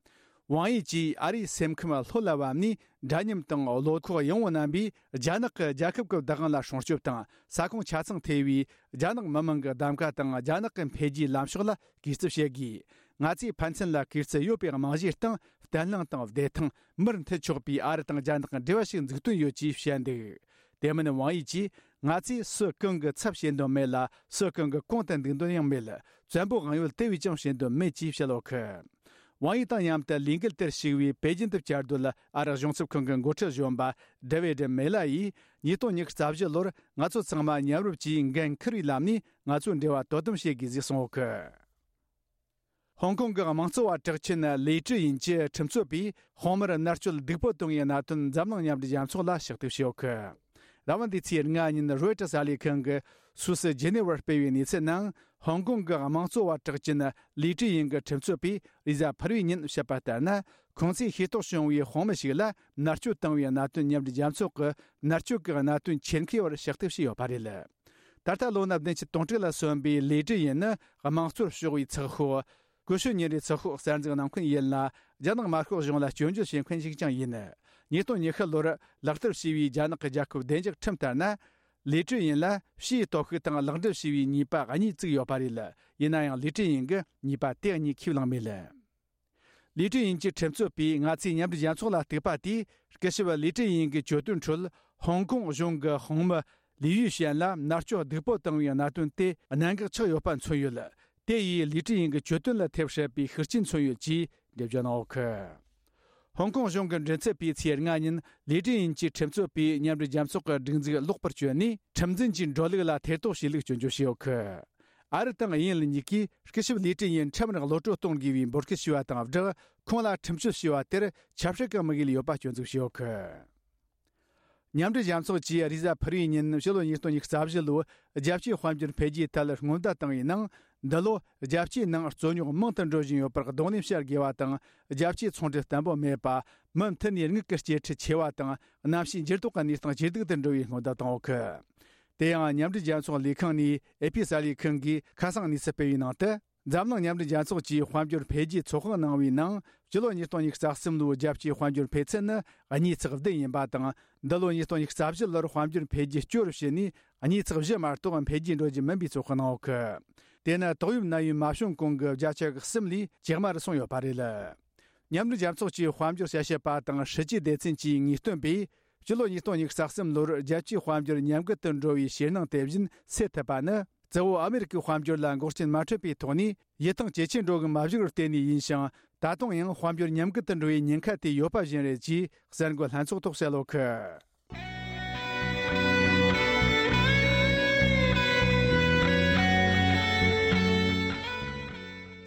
ཝང་ཡི་གྱིས་ཨ་རིའི་སེམས་ཁམས་ལྷོད་ལ་བབས་ནས། འདྲ་མཉམ་དང་བློ་ཁོག་ཡངས་པོ་རྣམ་པས་རྒྱ་ནག་གི་རྒྱལ་ཁབ་ཀྱི་བདག་དབང་ལ་སྲུང་སྐྱོབ་དང་། ས་ཁོངས་ཆ་ཚང་ཐེ་བའི་རྒྱ་ནག་མི་དམངས་ཀྱི་གདམ་ག་དང་། རྒྱ་ནག་གི་འཕེལ་རྒྱས་ལམ་ཕྱོགས་ལ་གུས་བརྩི་བྱེད་དགོས། ང་ཚོས་ཕན་ཚུན་ལ་གུས་བརྩི་ཡོད་པའི་རྨང་གཞིའི་སྟེང་། བརྟན་ལྷིང་དང་བདེ་ཐང་། མིར་མཐུད་ཆོག་པའི་ཨ་རི་དང་རྒྱ་ནག་གི་འབྲེལ་བ་ཞིག་འཛུགས་དོན་ཡོད་ཅེས་བཤད་འདུག་དེ་མིན་ཝང་ཡི་གྱིས། ང་ཚོས་སུ་གང་གི་ཚབ་བྱེད་འདོད་མེད་ལ། སུ་གང་གི་གོང་དུ་འདུག་འདོད་ཡང་མེད། བཙན་པོ་དབང་ཡོད་དེ་བས་ཀྱང་བྱེད་འདོད་མེད་ཅེས་བཤད་ཡོད་གི། ཝང་ཡི་དང་མཉམ་དུ་ལས་འགུལ་དེར་ཞུགས་པའི་པེ་ཅིན་དུ་བཅར་སྡོད་ཨ་རི་གཞུང་ཚབ་ཁང་གི་འགོ་ཁྲིད་གཞོན་པ་ཌེ་ཝིད་མེ་ལ་ཡིས། ཉིས་སྟོང་ཉི་ཤུ་རྩ་བཞི་ལོར་ང་ཚོ་ཚང་མ་མཉམ་རུབ་ཀྱིས་འགན་འཁུར་བའི་ལམ་ནས་ང་ཚོའི་འབྲེལ་བ་དོ་དམ་བྱེད་དགོས་ཟེར་གསུངས་ཡོད་གི། ཧོང་ཀོང་གི་དམངས་གཙོ་བ་གྲགས་ཅན་ལི་ཀྲི་ཡིན་གྱི་ཁྲིམས་རྩོད་པས་དཔོན་མིར་མནར་གཅོད་སྡུག་པོ་བཏང་བའི་གནད་དོན་འཛམ་གླིང་མཉམ་འབྲེལ་རྒྱལ་ཚོགས་ལ་ཕྱག་དེབ་ཞུས་ཡོད་གི། ར་བ་འདི་ཚེས་ལྔ་ཉིན་རོའི་ཊར་གསར་ལས་ཁང་གིས་སུད་སི་ཇི་ནི་ཝར་སྤེལ་བའི་གནས་ཚུལ་ནང་། ཧོང་ཀོང་གི་དམངས་གཙོ་བ་གྲགས་ཅན་ལི་ཀྲི་ཡིན་གྱི་ཁྲིམས་རྩོད་པས་རེས་གཟའ་ཕུར་བུའི་ཉིན་བཤད་པ་ལྟར་ན། ཁོང་ཚོས་ཤེས་རྟོགས་བྱུང་བའི་དཔོན་མི་ཞིག་ལ་མནར་གཅོད་བཏང་བའི་གནད་དོན་མཉམ་འབྲེལ་རྒྱལ་ཚོགས་ཀྱི་མནར་གཅོད་ཀྱི་གནད་དོན་ཆེད་མཁས་པར་ཕྱག་དེབ་ཞུས་ཡོད་པ་རེད། ད་ལྟ་ལོ་ན་བདུན་ཅུ་དོན་དྲུག་ལ་སོན་པའི་ལི་ཀྲི་ཡིན་ནི་དམངས་གཙོར་ཕྱོགས་པའི་ཚགས་ཤོག་ཀུ་ཤུ་ཉིན་རེའི་ཚགས་ཤོག་གསར་འཛུགས་གནང་མཁན་ཡིན་ལ། རྒྱ་ནག་དམར་ཤོག་གཞུང་ལ་སྐྱོན་བརྗོད་བྱེད་མཁན་ཞིག་ཀྱང་ཡིན། ཉིས་སྟོང་ཉི་ཤུ་ལོར་ལག་བསྟར་བྱས་པའི་རྒྱ་ནག་གི་རྒྱལ་ཁབ་བདེ་འཇགས་ཁྲིམས་ལྟར་ན། ལི་ཀྲི་ཡིན་ལ་ཕྱིའི་སྟོབས་ཤུགས་དང་ལག་འབྲེལ་བྱས་པའི་ཉེས་པ་གཉིས་བཙུགས་ཡོད་པ་རེད། ཡིན་ན་ཡང་ལི་ཀྲི་ཡིན་གྱིས་ཉེས་པ་དེ་གཉིས་ཁས་བླངས་མེད། ལི་ཀྲི་ཡིན་གྱི་ཁྲིམས་རྩོད་པས་ང་ཚོས་མཉམ་འབྲེལ་རྒྱལ་ཚོགས་ལ་གཏུགས་པ་དེས། སྐུ་ཞབས་ལི་ཀྲི་ཡིན་གྱི་གྱོད་དོན་ཁྲོད་ཧོང་ཀོང་གཞུང་གི་དཔོན་མི་ལི་ཡུས་ཤན་ལ་མནར་གཅོད་སྡུག་པོ་བཏང་བའི་གནད་དོན་དེ་གནད་འགག་ཆགས་ཡོད་པ་མཚོན་ཡོད། དེ་ཡིས་ལི་ཀྲི་ཡིན་གྱི་གྱོད་དོན་ལ་ཐེབས་སྲིད་པའི་ཤུགས་རྐྱེན་མཚོན་ཡོད་ཅེས་འགྲེལ་བརྗོད་གནང་ཡོད་གི། ཧོང་ཀོང་གཞུང་གི་མགྲིན་ཚབ་པས་ཚེས་ལྔ་ཉིན་ལི་ཀྲི་ཡིན་གྱི་ཁྲིམས་རྩོད་པས་མཉམ་འབྲེལ་རྒྱལ་ཚོགས་ཀྱི་སྒྲིག་འཛུགས་ལོག་པར་བསྐྱོན་ནས། ཁྲིམས་འཛིན་གྱི་འགྲོ་ལུགས་ལ་ཐེ་གཏོགས་བྱས་ལུགས་སྐྱོན་བརྗོད་བྱས་ཡོད་གི། ཨ་རི་དང་དབྱིན་ཡུལ་གཉིས་ཀས་སྐུ་ཞབས་ལི་ཀྲི་ཡིན་ཁྲིམས་ར་གློད་གྲོལ་གཏོང་དགོས་པའི་འབོད་སྐུལ་ཞུས་པ་དང་སྦྲགས། ཁོང་ལ་ཁྲིམས་གཅོད་ཞུས་པ་དེར་ཆབ་སྲིད་ཀྱི་དམིགས་ཡུལ་ཡོད་པ་སྐྱོན་འཛུགས་བྱས་ཡོད་གི། མཉམ་འབྲེལ་རྒྱལ་ཚོགས་ཀྱིས་རེས་གཟའ་ཕུར་བུའི་ཉིན་ཕྱི་ལོ་ཉིས་སྟོང་ཉི་ཤུ་རྩ་བཞི་ལོའི་རྒྱལ་སྤྱིའི་དཔལ་འབྱོར་འཕེལ་རྒྱས་ཐད་སྔོན་བརྡ་བཏང་བའི་ནང་། འདི་ལོ་རྒྱལ་སྤྱིའི་ནང་རྩོད་རྙོག་མང་དུ་འགྲོ་བཞིན་ཡོད་པར་གདོང་ལེན་བྱ་དགོས་པ་དང་། རྒྱལ་སྤྱིའི་ཚོང་འབྲེལ་བརྟན་པོ་མེད་པ། མུ་མཐུད་ནས་དངུལ་གྱི་སྐྱེད་ཁྲལ་ཆེ་བ་དང་། གནམ་གཤིས་འགྱུར་ལྡོག་གི་གནས་སྟངས་ཇེ་སྡུག་ཏུ་འགྲོ་བའི་སྔོན་བརྡ་བཏང་ཡོད་གི། དེ་ཡང་མཉམ་འབྲེལ་རྒྱལ་ཚོགས་ལས་ཁང་ནས་ཨེ་ཕི་གསར་ལས་ཁང་གིས་ཁ་སང་གནས་ཚུལ་སྤེལ་བའི་ནང་དུ། འཛམ་གླིང་མཉམ་འབྲེལ་རྒྱལ་ཚོགས་ཀྱིས་དཔལ་འབྱོར་འཕེལ་རྒྱས་ཚོད་དཔག་གནང་བའི་ནང་། སྤྱི་ལོ་ཉིས་སྟོང་ཉི་ཤུ་རྩ་གསུམ་ལོའི་རྒྱལ་སྤྱིའི་དཔལ་འབྱོར་འཕེལ་ཚད་ནི་གཉིས་ཚེག་བདུན་ཡིན་པ་དང་། འདི་ལོ་ཉིས་སྟོང་ཉི་ཤུ་རྩ་བཞི་ལོར་དཔལ་འབྱོར་འཕེལ་རྒྱས་སྐྱོ་རུ་ཕྱིན་ནས། གཉིས་ཚེག་བཞི་མ་གཏོགས་འཕེལ་རྒྱས་འགྲོ་རྒྱུ་མིན་པའི་ཚོད་དཔག་གནང་ཡོད་གི། དེ་ནི་ཏོག་དབྱིབས་ནད་ཡམས་མ་བྱུང་གོང་གི་བརྒྱ་ཆ་གསུམ་ལས་ཇེ་དམའ་རུ་སོང་ཡོད་པ་རེད། མཉམ་འབྲེལ་རྒྱལ་ཚོགས་ཀྱི་དཔལ་འབྱོར་དཔྱད་ཞིབ་པ་དང་། སྲིད་ཇུས་སྡེ་ཚན་གྱི་ངེས་སྟོན་པས། སྤྱི་ལོ་ཉིས་སྟོང་ཉི་ཤུ་རྩ་གསུམ་ལོར་རྒྱལ་སྤྱིའི་དཔལ་འབྱོར་ཉམས་རྒུད་དུ་འགྲོ་བའི་ཕྱིར་སྣང་དེ་བཞིན་སེལ་ཐུབ་པ་ནི། གཙོ་བོ་ཨ་མེ་རི་ཀའི་དཔལ་འབྱོར་ལ་འགོག་རྐྱེན་མ་འཕྲད་པའི་ཐོག་ནས་ཡིད་ཐང་ཇེ་ཆེར་འགྲོ་གི་མ་བཞུགས་པར་བརྟེན་ནས་ཡིན་ཞིང་། ད་དུང་ཡང་དཔལ་འབྱོར་ཉམས་རྒུད་དུ་འགྲོ་བའི་ཉེན་ཁ་དེ་ཡོད་པ་བཞིན་རེད་ཅེས་གསར་འགོད་ལྷན་ཚོགས་ཐོག་གསལ་ལོ་ཁུ།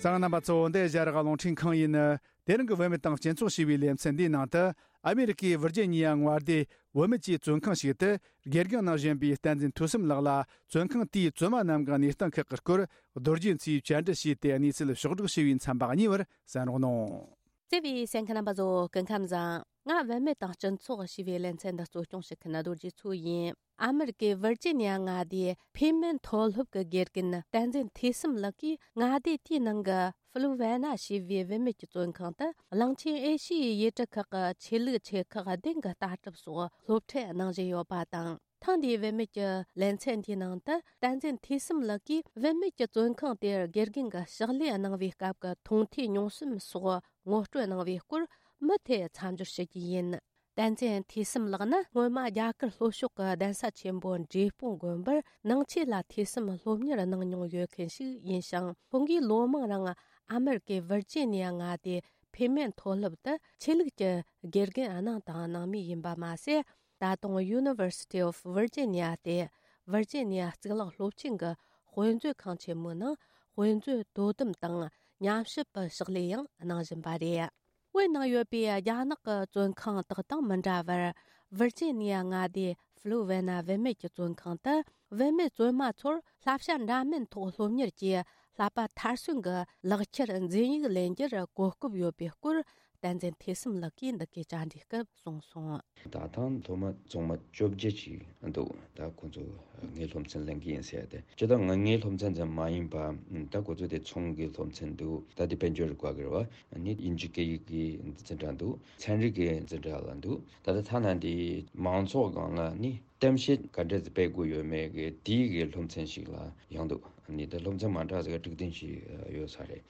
གསན་མཁན་རྣམ་པ་ཚོ། འདི་ཨེ་ཤ་ཡ་རང་དབང་རླུང་འཕྲིན་ཁང་ཡིན། དེ་རིང་གི་བུད་མེད་དང་སྤྱི་ཚོགས་ཞེས་པའི་ལེ་ཚན་འདིའི་ནང་དུ། ཨ་མེ་རི་ཀའི་ཝིར་ཇི་ཉི་ཡ་མངའ་སྡེའི་བུད་མེད་ཀྱི་བཙོན་ཁང་ཞིག་ཏུ་དགེ་རྒན་གནང་བཞིན་པའི་བསྟན་འཛིན་ཐོས་བསམ་ལགས་ལ། བཙོན་ཁང་དེའི་བཙོན་མ་རྣམས་ཀྱི་གནས་སྟངས་ཁག་གི་སྐོར་རྡོ་རྗེ་མཚོས་བཅར་འདྲི་བྱས་ཏེ། གནས་ཚུལ་ཕྱོགས་བསྒྲིགས་ཞུས་པའི་མཚམས་པ་གཉིས་པར་གསན་རོགས་གནང་། བརྩེ་བའི་གསན་མཁན་རྣམ་པ་ཚོ། སྐུ་ཁམས་བཟང་། ང་བུད་མེད་དང་སྤྱི་ཚོགས་ཞེས་པའི་ལེ་ཚན་འདི་གཙོ་སྐྱོང་བྱེད་མཁན་རྡོ་རྗེ་མཚོ་ཡིན། ཨ་མེ་རི་ཀའི་ཝིར་ཇི་ནི་ཡ་མངའ་སྡེའི་ཕེ་མེན་མཐོ་སློབ་ཀྱི་དགེ་རྒན་བསྟན་འཛིན་ཐོས་བསམ་ལགས་ཀྱིས་མངའ་སྡེ་དེའི་ནང་གི་ཧྥུ་ལུ་ཝེ་ན་ཞེས་པའི་བུད་མེད་ཀྱི་བཙོན་ཁང་དུ། གླིང་ཆེན་ཨེ་ཤི་ཡའི་ཡུལ་གྲུ་ཁག་གི་ཆོས་ལུགས་ཆེ་ཁག་བདུན་གྱི་ལྟ་གྲུབ་སོགས་སློབ་ཁྲིད་གནང་བཞིན་ཡོད་པ་དང་། ཐེངས་འདིའི་བུད་མེད་ཀྱི་ལེ་ཚན་འདིའི་ནང་དུ། བསྟན་འཛིན་ཐོས་བསམ་ལགས་ཀྱིས་བུད་མེད་ཀྱི་བཙོན་ཁང་དེར་དགེ་རྒན་གྱི་ཕྱག་ལས་གནང་བའི་སྐབས་ཀྱི་མཐོང་ཐོས་མྱོང་བསམ་སོགས་ངོ་སྤྲོད་གནང་བའི་སྐོར་མུ་མཐུད་མཚམས་སྦྱོར་ཞུ་རྒྱུ་ཡིན། བསྟན་འཛིན་ཐོས་བསམ་ལགས་ནི་སྔོན་མ་རྒྱ་གར་ལྷོ་ཕྱོགས་ཀྱི་གདན་ས་ཆེན་པོ་འབྲས་སྤུངས་དགོན་པར་ནང་ཆོས་ལ་ཐོས་བསམ་སློབ་གཉེར་གནང་མྱོང་ཡོད་མཁན་ཞིག་ཡིན་ཞིང་། ཁོང་གིས་ལོ་མང་རིང་ཨ་མེ་རི་ཀའི་ཝིར་ཇི་ནི་ཡ་མངའ་སྡེའི་ཕེ་མེན་མཐོ་སློབ་ཏུ་ཆོས་ལུགས་ཀྱི་དགེ་རྒན་གནང་དང་གནང་མུས་ཡིན་པ་མ་ཟད། ད་དུང་University of Virginia སྟེ་ཝིར་ཇི་ནི་ཡ་གཙུག་ལག་སློབ་ཆེན་གྱི་དཔེ་མཛོད་ཁང་ཆེན་མོའི་ནང་དཔེ་མཛོད་དོ་དམ་དང་ཉམས་ཞིབ་པའི་ཕྱག་ལས་ཡང་གནང་བཞིན་པ་རེད། བོད་ནང་ཡོད་པའི་རྒྱ་ནག་གི་བཙོན་ཁང་དག་དང་མི་འདྲ་བར། ཝིར་ཇི་ནི་ཡ་མངའ་སྡེའི་ཧྥུ་ལུ་ཝེ་ན་བུད་མེད་ཀྱི་བཙོན་ཁང་དུ་བུད་མེད་བཙོན་མ་ཚོར་བསླབ་བྱ་འདྲ་མིན་ཐོག་སློབ་གཉེར་གྱིས་ བསླབ་པ་མཐར་སོན་གྱི་ལག་ཁྱེར་འཛིན་ཡིག་ལེན་རྒྱུར་གོ་སྐབས་ཡོད་པའི་སྐོར། བསྟན་འཛིན་ཐོས་བསམ་ལགས་ཀྱིས་འདི་གའི་བཅར་འདྲིའི་སྐབས་གསུངས་སོང་། ད་ཐེངས་སློབ་མ་བཙུན་མ་བཅོ་བརྒྱད་ཅིག་འདུག་ད་ཁོང་ཚོ་ངའི་སློབ་ཚན་ལེན་གྱི་ཡིན་ཟེར་ཏེ། སྤྱིར་བཏང་ང་ངའི་སློབ་ཚན་ཙམ་མ་ཡིན་པ། ད་ཁོ་ཚོ་དེ་ཚོང་གི་སློབ་ཚན་འདུག་ད་དེ་དཔལ་འབྱོར་དགོས་ཀྱི་རེད་བ། ནི་དབྱིན་ཇི་སྐད་ཡིག་གི་འཛིན་གྲྭ་འདུག་ཚན་རིག་གི་འཛིན་གྲྭ་ལ་འདུག་ད་ལྟ་ཐ་ན་འདི་མང་ཚོགས་སྒང་ལ་ནི་གཏམ་བཤད་ག་འདྲ་ཞིག་སྤེལ་དགོས་ཡོད་མེད་ཀྱི་དེའི་གི་སློབ་ཚན་ཞིག་ལ་ཡང་འདུག་ནི་ད་སློབ་ཚན་མ་འདྲ་ཟེར་གི་དྲུག་བདུན་ཞིག་ཡོད་ས་རེད།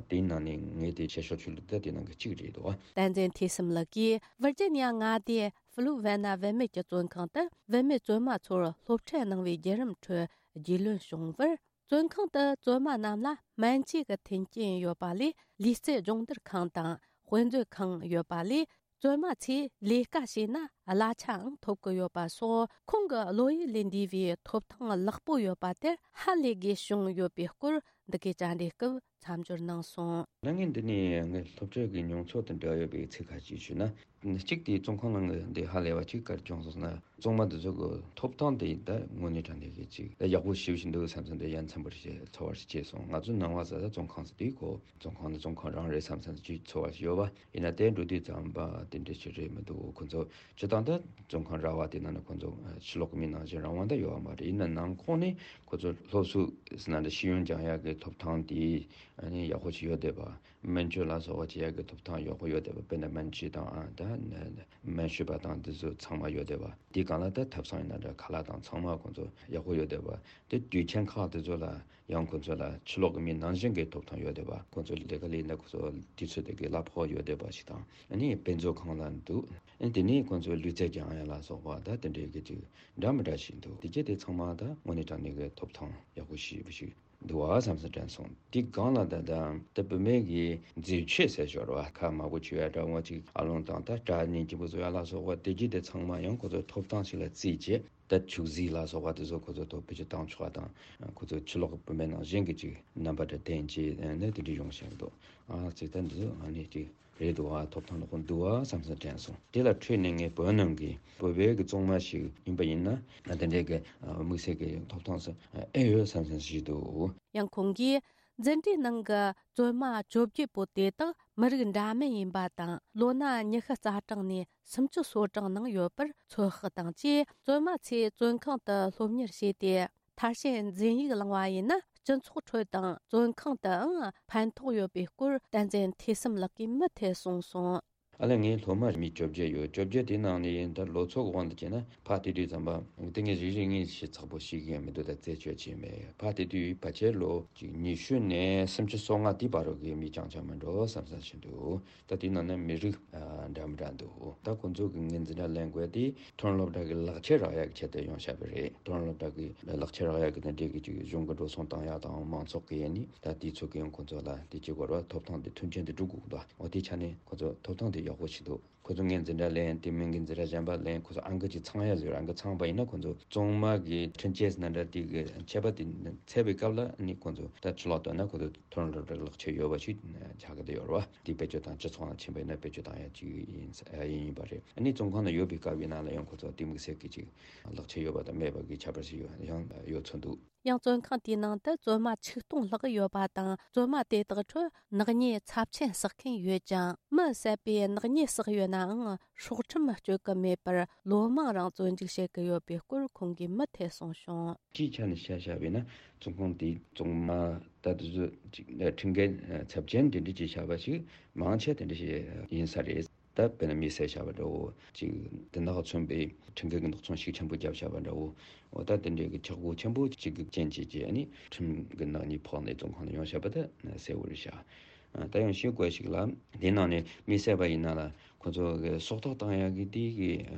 དེའི་ནང་ནས་ངས་དེ་བཤད་ཤོག་ཆུ་ལུགས་ད་དེ་ནང་གི་གཅིག་རེད་འདུག་བསྟན་འཛིན་ཐོས་བསམ་ལགས་ཀྱིས་ཝིར་ཇི་ནི་ཡ་མངའ་སྡེའི་ཧྥུ་ལུ་ཝེ་ན་བུད་མེད་ཀྱི་བཙོན་ཁང་དུ་བུད་མེད་བཙོན་མ་ཚོར་སློབ་ཁྲིད་གནང་བའི་བརྒྱུད་རིམ་ཁྲོད་རྒྱུས་ལོན་བྱུང་བར། བཙོན་ཁང་དུ་བཙོན་མ་རྣམས་ལ་སྨན་བཅོས་ཀྱི་མཐུན་རྐྱེན་ཡོད་པ་ལས། ལུས་རྩལ་སྦྱོང་བརྡར་ཁང་དང་དཔེ་མཛོད་ཁང་ཡོད་པ་ལས། བཙོན་མ་ཚོས་ལས་ཀ་བྱས་ན་གླ་ཆའང་ཐོབ་ཀྱི་ཡོད་པ་སོགས། ཁོང་གི་བློ་ཡུལ་ལས་འདས་པའི་ཐོབ་ཐང་ལེགས་པོ་ཡོད་པ་དེར་ཧ་ལས་དགོས་བྱུང་ཡོད་པའི་སྐོར། འདི་གའི་བཅར་འདྲིའི་སྐབས་མཚམས་སྦྱོར་གནང་སོང་། ད་ངས་འདི་ནས་ངའི་སློབ་ཁྲིད་ཀྱི་མྱོང་ཚོར་དང་འབྲེལ་ཡོད་པའི་ཚིག་ཁ་ཅིག་ཞུས་ན། གཅིག་དེ་བཙོན་ཁང་ནང་གི་འདི་ཧ་ལས་པ་གཅིག་ག་རེ་བྱུང་སོང་ཟེར་ན། བཙོན་མ་འདི་ཚོ་གི་ཐོབ་ཐང་དེ་ད་དངོས་གནས་དྲང་གནས་ཀྱི་ཅིག་ད་ཡག་པོ་ཞེ་པོ་ཞིག་འདུག་བསམ་བསམ་དེ་ཡ་མཚན་པོ་ཞིག་ཚོར་བ་ཞིག་སྐྱེས་སོང་། ང་ཚོ་ནང་པ་ཟེར་ད་བཙོན་ཁང་ཟེར་དུས་ཁོ་བཙོན་ཁང་ནི་བཙོན་ཁང་རང་རེད་བསམ་བསམ་ཅིག་ཚོར་བ་ཞིག་ཡོད་པ། ཡིན་ན་དེ་འགྲོ་དུས་ཙམ་པ་དེ་འདྲ་ཞིག་རེད་མི་འདུག་ཁོ་ཚོ་སྤྱིར་བཏང་ད་བཙོན་ཁང་ར་བ་དེ་ནང་ནས་ཁོ་ཚོ་ཕྱི་ལོགས་ཀྱི་མི་ནང་བཞིན་རང་དབང་ད་ཡོད་པ་མ་རེད། ཡིན་ན་ནང་ཁོངས་ནས་ཁོ་ཚོ་སློབ་གསོ་ཟེར་ན་འདྲ་ཤེས་ཡོན་སྦྱང་ཡག་གི་ཐོབ་ཐང་དེ་ཨ་ནི་ཡག་པོ་ཞིག་ཡོད་བསྡད་པ། སྨན་བཅོས་ལ་སོགས་པ་བྱེད་ཡག་གི་ཐོབ་ཐང་ཡག་པོ་ཡོད་བསྡད་པ། དཔེར་ན་སྨན་བཅོས་དང་ཨ་ད་སྨན་ཞུ་བ་དང་འདི་ཚོ་ཚང་མ་ཡོད་བསྡད་པ། དེ་གང་ལ་ད་ཐབ་ཚང་ཡིན་ན་འདྲ་ཁ་ལག་དང་ཚང་མ་ཁོང་ཚོ་ཡག་པོ་ཡོད་བསྡད་པ། དེ་དུས་ཆེན་ཁག་དེ་ཚོ་ལ་ཡང་ཁོང་ཚོ་ལ་ཕྱི་ལོགས་ཀྱི་མི་ནང་བཞིན་གྱི་ཐོབ་ཐང་ཡོད་བསྡད་པ། ཁོང་ཚོ་ལས་ཀ་ལས་ན་ཁོང་ཚོ་དུས་ཚོད་དེ་གའི་གླ་ཕོགས་ཡོད་བསྡད་པ་ཞིག་དང་། ཨ་ནི་དཔེ་མཛོད་ཁང་ལ་འདུག་ཨ་ནི་དེ་ནས་ཁོང་ཚོ་ལུས་རྩལ་སྦྱང་ཡག་ལ་སོགས་པ་ད་དེ་འདྲའི་གི་ཅིག་འདྲ་མི་འདྲ་ཞིག་འདུག་དེ་གྱད་དེ་ཚང་མ་ད་དངོས་གནས་དྲང་གནས་ཀྱི་ཐོབ་ཐང་ཡག་པོ་ཞེ་པོ་ཞིག་འདུག་བ་བསམ་བསམ་དྲན་སོང་། དེ་སྒང་ལ་ད་ད་ད་བུད་མེད་ཀྱི་མཛེས་ཆོས་ཟེར་ཞོར་བ་ཁ་མང་པོ་བྱུག་ཡག་འདྲ་བོ་ཅིག་ཨ་ལོང་དང་ད་སྐྲ་ནས་སྐྱིན་པོ་བཟོ་ཡག་ལ་སོགས་པ་དེ་གྱད་དེ་ཚང་མ་ཡང་ཁོ་ཚོ་ཐོབ་ཐང་ཞིག་ལ་བརྩིས་རྗེས་ད་བྱུག་རྫས་ལ་སོགས་པ་དེ་ཚོ་ཁོ་ཚོ་ཐོབ་བེད་སྤྱོད་བཏང་ཆོག་པ་དང་། ཁོ་ཚོ་ཕྱི་ལོགས་ཀྱི་བུད་མེད་ནང་བཞིན་གྱི་ཅིག་རྣམ་པ་འདྲ་བསྟན་བྱས་ནས་དེ་འདྲ་ཡོང་བཞིན་འདུག་ཨ་ཙི་ད་འདི་ཚོ་ཨ་ནི་ཅིག་རེད་འདུག་ཨ་ཐོབ་ཐང་ལོག་འདུག་ཨ་བསམ་བསམ་དྲན་སོང་། དེ་ལ་འཕྲོས་ནས་ངས་བོད་ནང་གི་བོད་པའི་གི་བཙོན་མ་ཞིག་ཡིན་པ་ཡིན་ན་ཨ་དེ་འདྲའི་གི་ཨ་དམིགས་བསལ་གི་ཐོབ་ཐང་ཟེར་ཨེ་ཡོད་བསམ་བསམ་ཞིག་འདུག་ཡང་ཁོང་གིས་འཛིན་གྲྭའི་ནང་གི་བཙོན་མ་བཅོ་བརྒྱད་པོ་དེ་དག་མི་རིགས་འདྲ་མིན་ཡིན་པ་དང་། ལོ་ན་ཉི་ཤུ་རྩ་གྲངས་ནས་སུམ་ཅུ་སོ་གྲངས་ནང་ཡོད་པར་ཚོད་དཔག་དང་བཅས། བཙོན་མ་ཚོས་བཙོན་ཁང་དུ་སློབ་གཉེར་བྱས་ཏེ། མཐར་ཕྱིན་འཛིན་ཡིག་བླངས་པ་ཡིན་ན་སྤྱི་ཚོགས་ཁྲོད་དང་བཙོན་ཁང་དུའང་ཕན་ཐོགས་ཡོད་པའི་སྐོར། བསྟན་འཛིན་ཐོས་བསམ་ལགས་ཀྱིས་མུ་མཐུད་གསུངས་སོང་། ཨ་ལས་ངའི་སློབ་མ་མི་བཅོ་བརྒྱད་ཡོད། བཅོ་བརྒྱད་དེའི་ནང་ནས་ཡིན་ད་ལོ་ཚོད་དབང་དུ་བྱས་ན་ཕར་བལྟས་དུས་ཙམ་པ་དེ་ངས་རིག་རིག་ངེས་ཤེས་ཚགས་པོ་ཤེས་ཀྱི་ཡང་མི་འདུག་ད་རྩད་གཅོད་བྱས་མེད། ཕར་བལྟས་དུས་ཕལ་ཆེར་ལོ་གཅིག་ཉི་ཤུ་ནས་སུམ་ཅུ་སོ་ལྔ་དེའི་བར་རོ་གི་མི་རྐྱང་རྐྱང་མི་འགྲོ་བསམ་བསམ་བྱེད་འདུག་ད་དེའི་ནང་ན་མི་རིགས་ཨ་འདྲ་མི་འདྲ་འདུག་ད་ཁོང་ཚོ་གི་ངའི་འཛིན་གྲྭ་ལེན་དགོས་དེ་མཐོ་རིམ་སློབ་གྲྭ་གི་ལག་ཁྱེར་རག་ཡག་གི་ཆེད་དུ་ཡོང་བཞག་པ་རེད། མཐོ་རིམ་སློབ་གྲྭ་གི་ལག་ཁྱེར་རག་ཡག་གི་དེ་འདྲའི་གི་ཅིག་གཞུང་གི་འགྲོ་སོང་བཏང་ཡག་དང་མང་ཚོགས་ཀྱི་ཡིན་ནི་ད་དེ་ཚོ་གི་ཡང་ཁོང་ཚོ་ལ་དེ་གཅིག་བར་བ་ཐོབ་ཐང་དེ་མཐུན་རྐྱེན་དེ་སྒྲུབ་དགོས་འདུག་འོ་དེ་ཆ་ནས་ཁོང་ཚོ་ཐོབ་ཐང་དེ་ཡག་པོ་ཞིག་འདུག་ཁོ་ཚོ་ངའི་འཛིན་གྲྭ་ལེན་དེ་མིན་གྱི་འཛིན་གྲྭ་གཞན་པ་ལེན་ཁོ་ཚོ་ཨང་ཀི་ཅིག་ཚང་ཡ་ཟེར། ཨང་ཀི་ཚང་པ་ཡིན་ན་ཁོ་ཚོ་བཙོན་མ་གི་ཁྲིམས་ཆད་ཟེར་ན་འདྲ་དེ་གི་ཆད་པ་དེ་ཚད་པའི་སྐབས་ལ་ནི་ཁོ་ཚོ་ད་ཕྱི་ལོགས་དོན་ན་ཁོ་ཚོ་མཐོ་རིམ་སློབ་གྲྭའི་ལག་ཁྱེར་ཡོད་པ་ཞིག་ཆགས་ཀྱི་ཡོད་རེད་བ། དེ་བེད་སྤྱོད་དང་སྤྱི་ཚོགས་ནང་ཕྱིན་པ་ཡིན་ན་བེད་སྤྱོད་བཏང་ཡ་ཅིག་ཡིན་ཡིན་ཡིན་པ་རེད། ཨ་ནི་བཙོན་ཁང་ནང་ཡོད་པའི་སྐབས་ཡིན་ན་ལ་ཡང་ཁོ་ཚོ་དེ་དམིགས་བསལ་གྱི་ཅིག་ལག་ཁྱེར་ཡོད་པ་དང་མེད་པ་གི་ཁྱད་པར་ཞིག་ཡོད་ཡང་ཡོད་ཚོད་འདུག་ཡང་བཙོན་ཁང་དེའི་ནང་དུ་བཙོན་མ་ཆིག་སྟོང་ལྷག་ཡོད་པ་དང་། བཙོན་མ་དེ་དག་ཁྲོད་ནག་ཉེས་ཚབས་ཆེན་བསགས་མཁན་ཡོད་ཅིང་། མི་བསད་པའི་ནག་ཉེས་བསགས་ཡོད་ནའང་སྲོག་ཁྲིམས་གཅོད་ཀྱི་མེད་པར་ལོ་མང་རིང་བཙོན་འཇུག་བྱེད་ཀྱི་ཡོད་པའི་སྐོར་ཁོང་གིས་མུ་མཐུད་གསུངས་བྱུང་། སྤྱིའི་ཆ་ནས་བཤད་བཤད་པས་ན་བཙོན་ཁང་དེའི་བཙོན་མ་ད་དེ་ཚོ་ཅིག་ཁྲིམས་འགལ་ཚབས་ཆེན་དེ་འདྲ་ཅིག་བྱས་པ་ཞིག་མང་ཆེ་དེ་འདྲ་ཞིག་ཡིན་ས་རེད། ད་དཔེར་ན་མི་བསད་བྱས་པ་འདྲ་བོ་ཅིག་དེ་དག་མཚོན་པའི་ཁྲིམས་འགལ་གྱི་ནག་ཚོང་ཤུགས་ཆེན་པོ་བརྒྱབ་བྱས་པ་འདྲ་བོ། འོ་ད་དེ་འདྲའི་གི་ཆག་སྒོ་ཆེན་པོ་གཅིག་གི་རྐྱེན་བྱས་རྗེས་ནི་ཁྲིམས་ཀྱི་ནག་ཉེས་ཕོག་ནས་བཙོན་ཁང་ལ་ཡོང་བྱས་པ་ད་གསལ་བོ་རེད་ཤག་ད་ཡང་ཤེས་དགོས་ཤིག་ལ་དེ་ནང་ནས་མི་བསད་པ་ཡིན་ན་ལ་ཁོ་ཚོ་གི་སྲོག་ཐོག་བཏང་ཡག་གི་དེ་གི་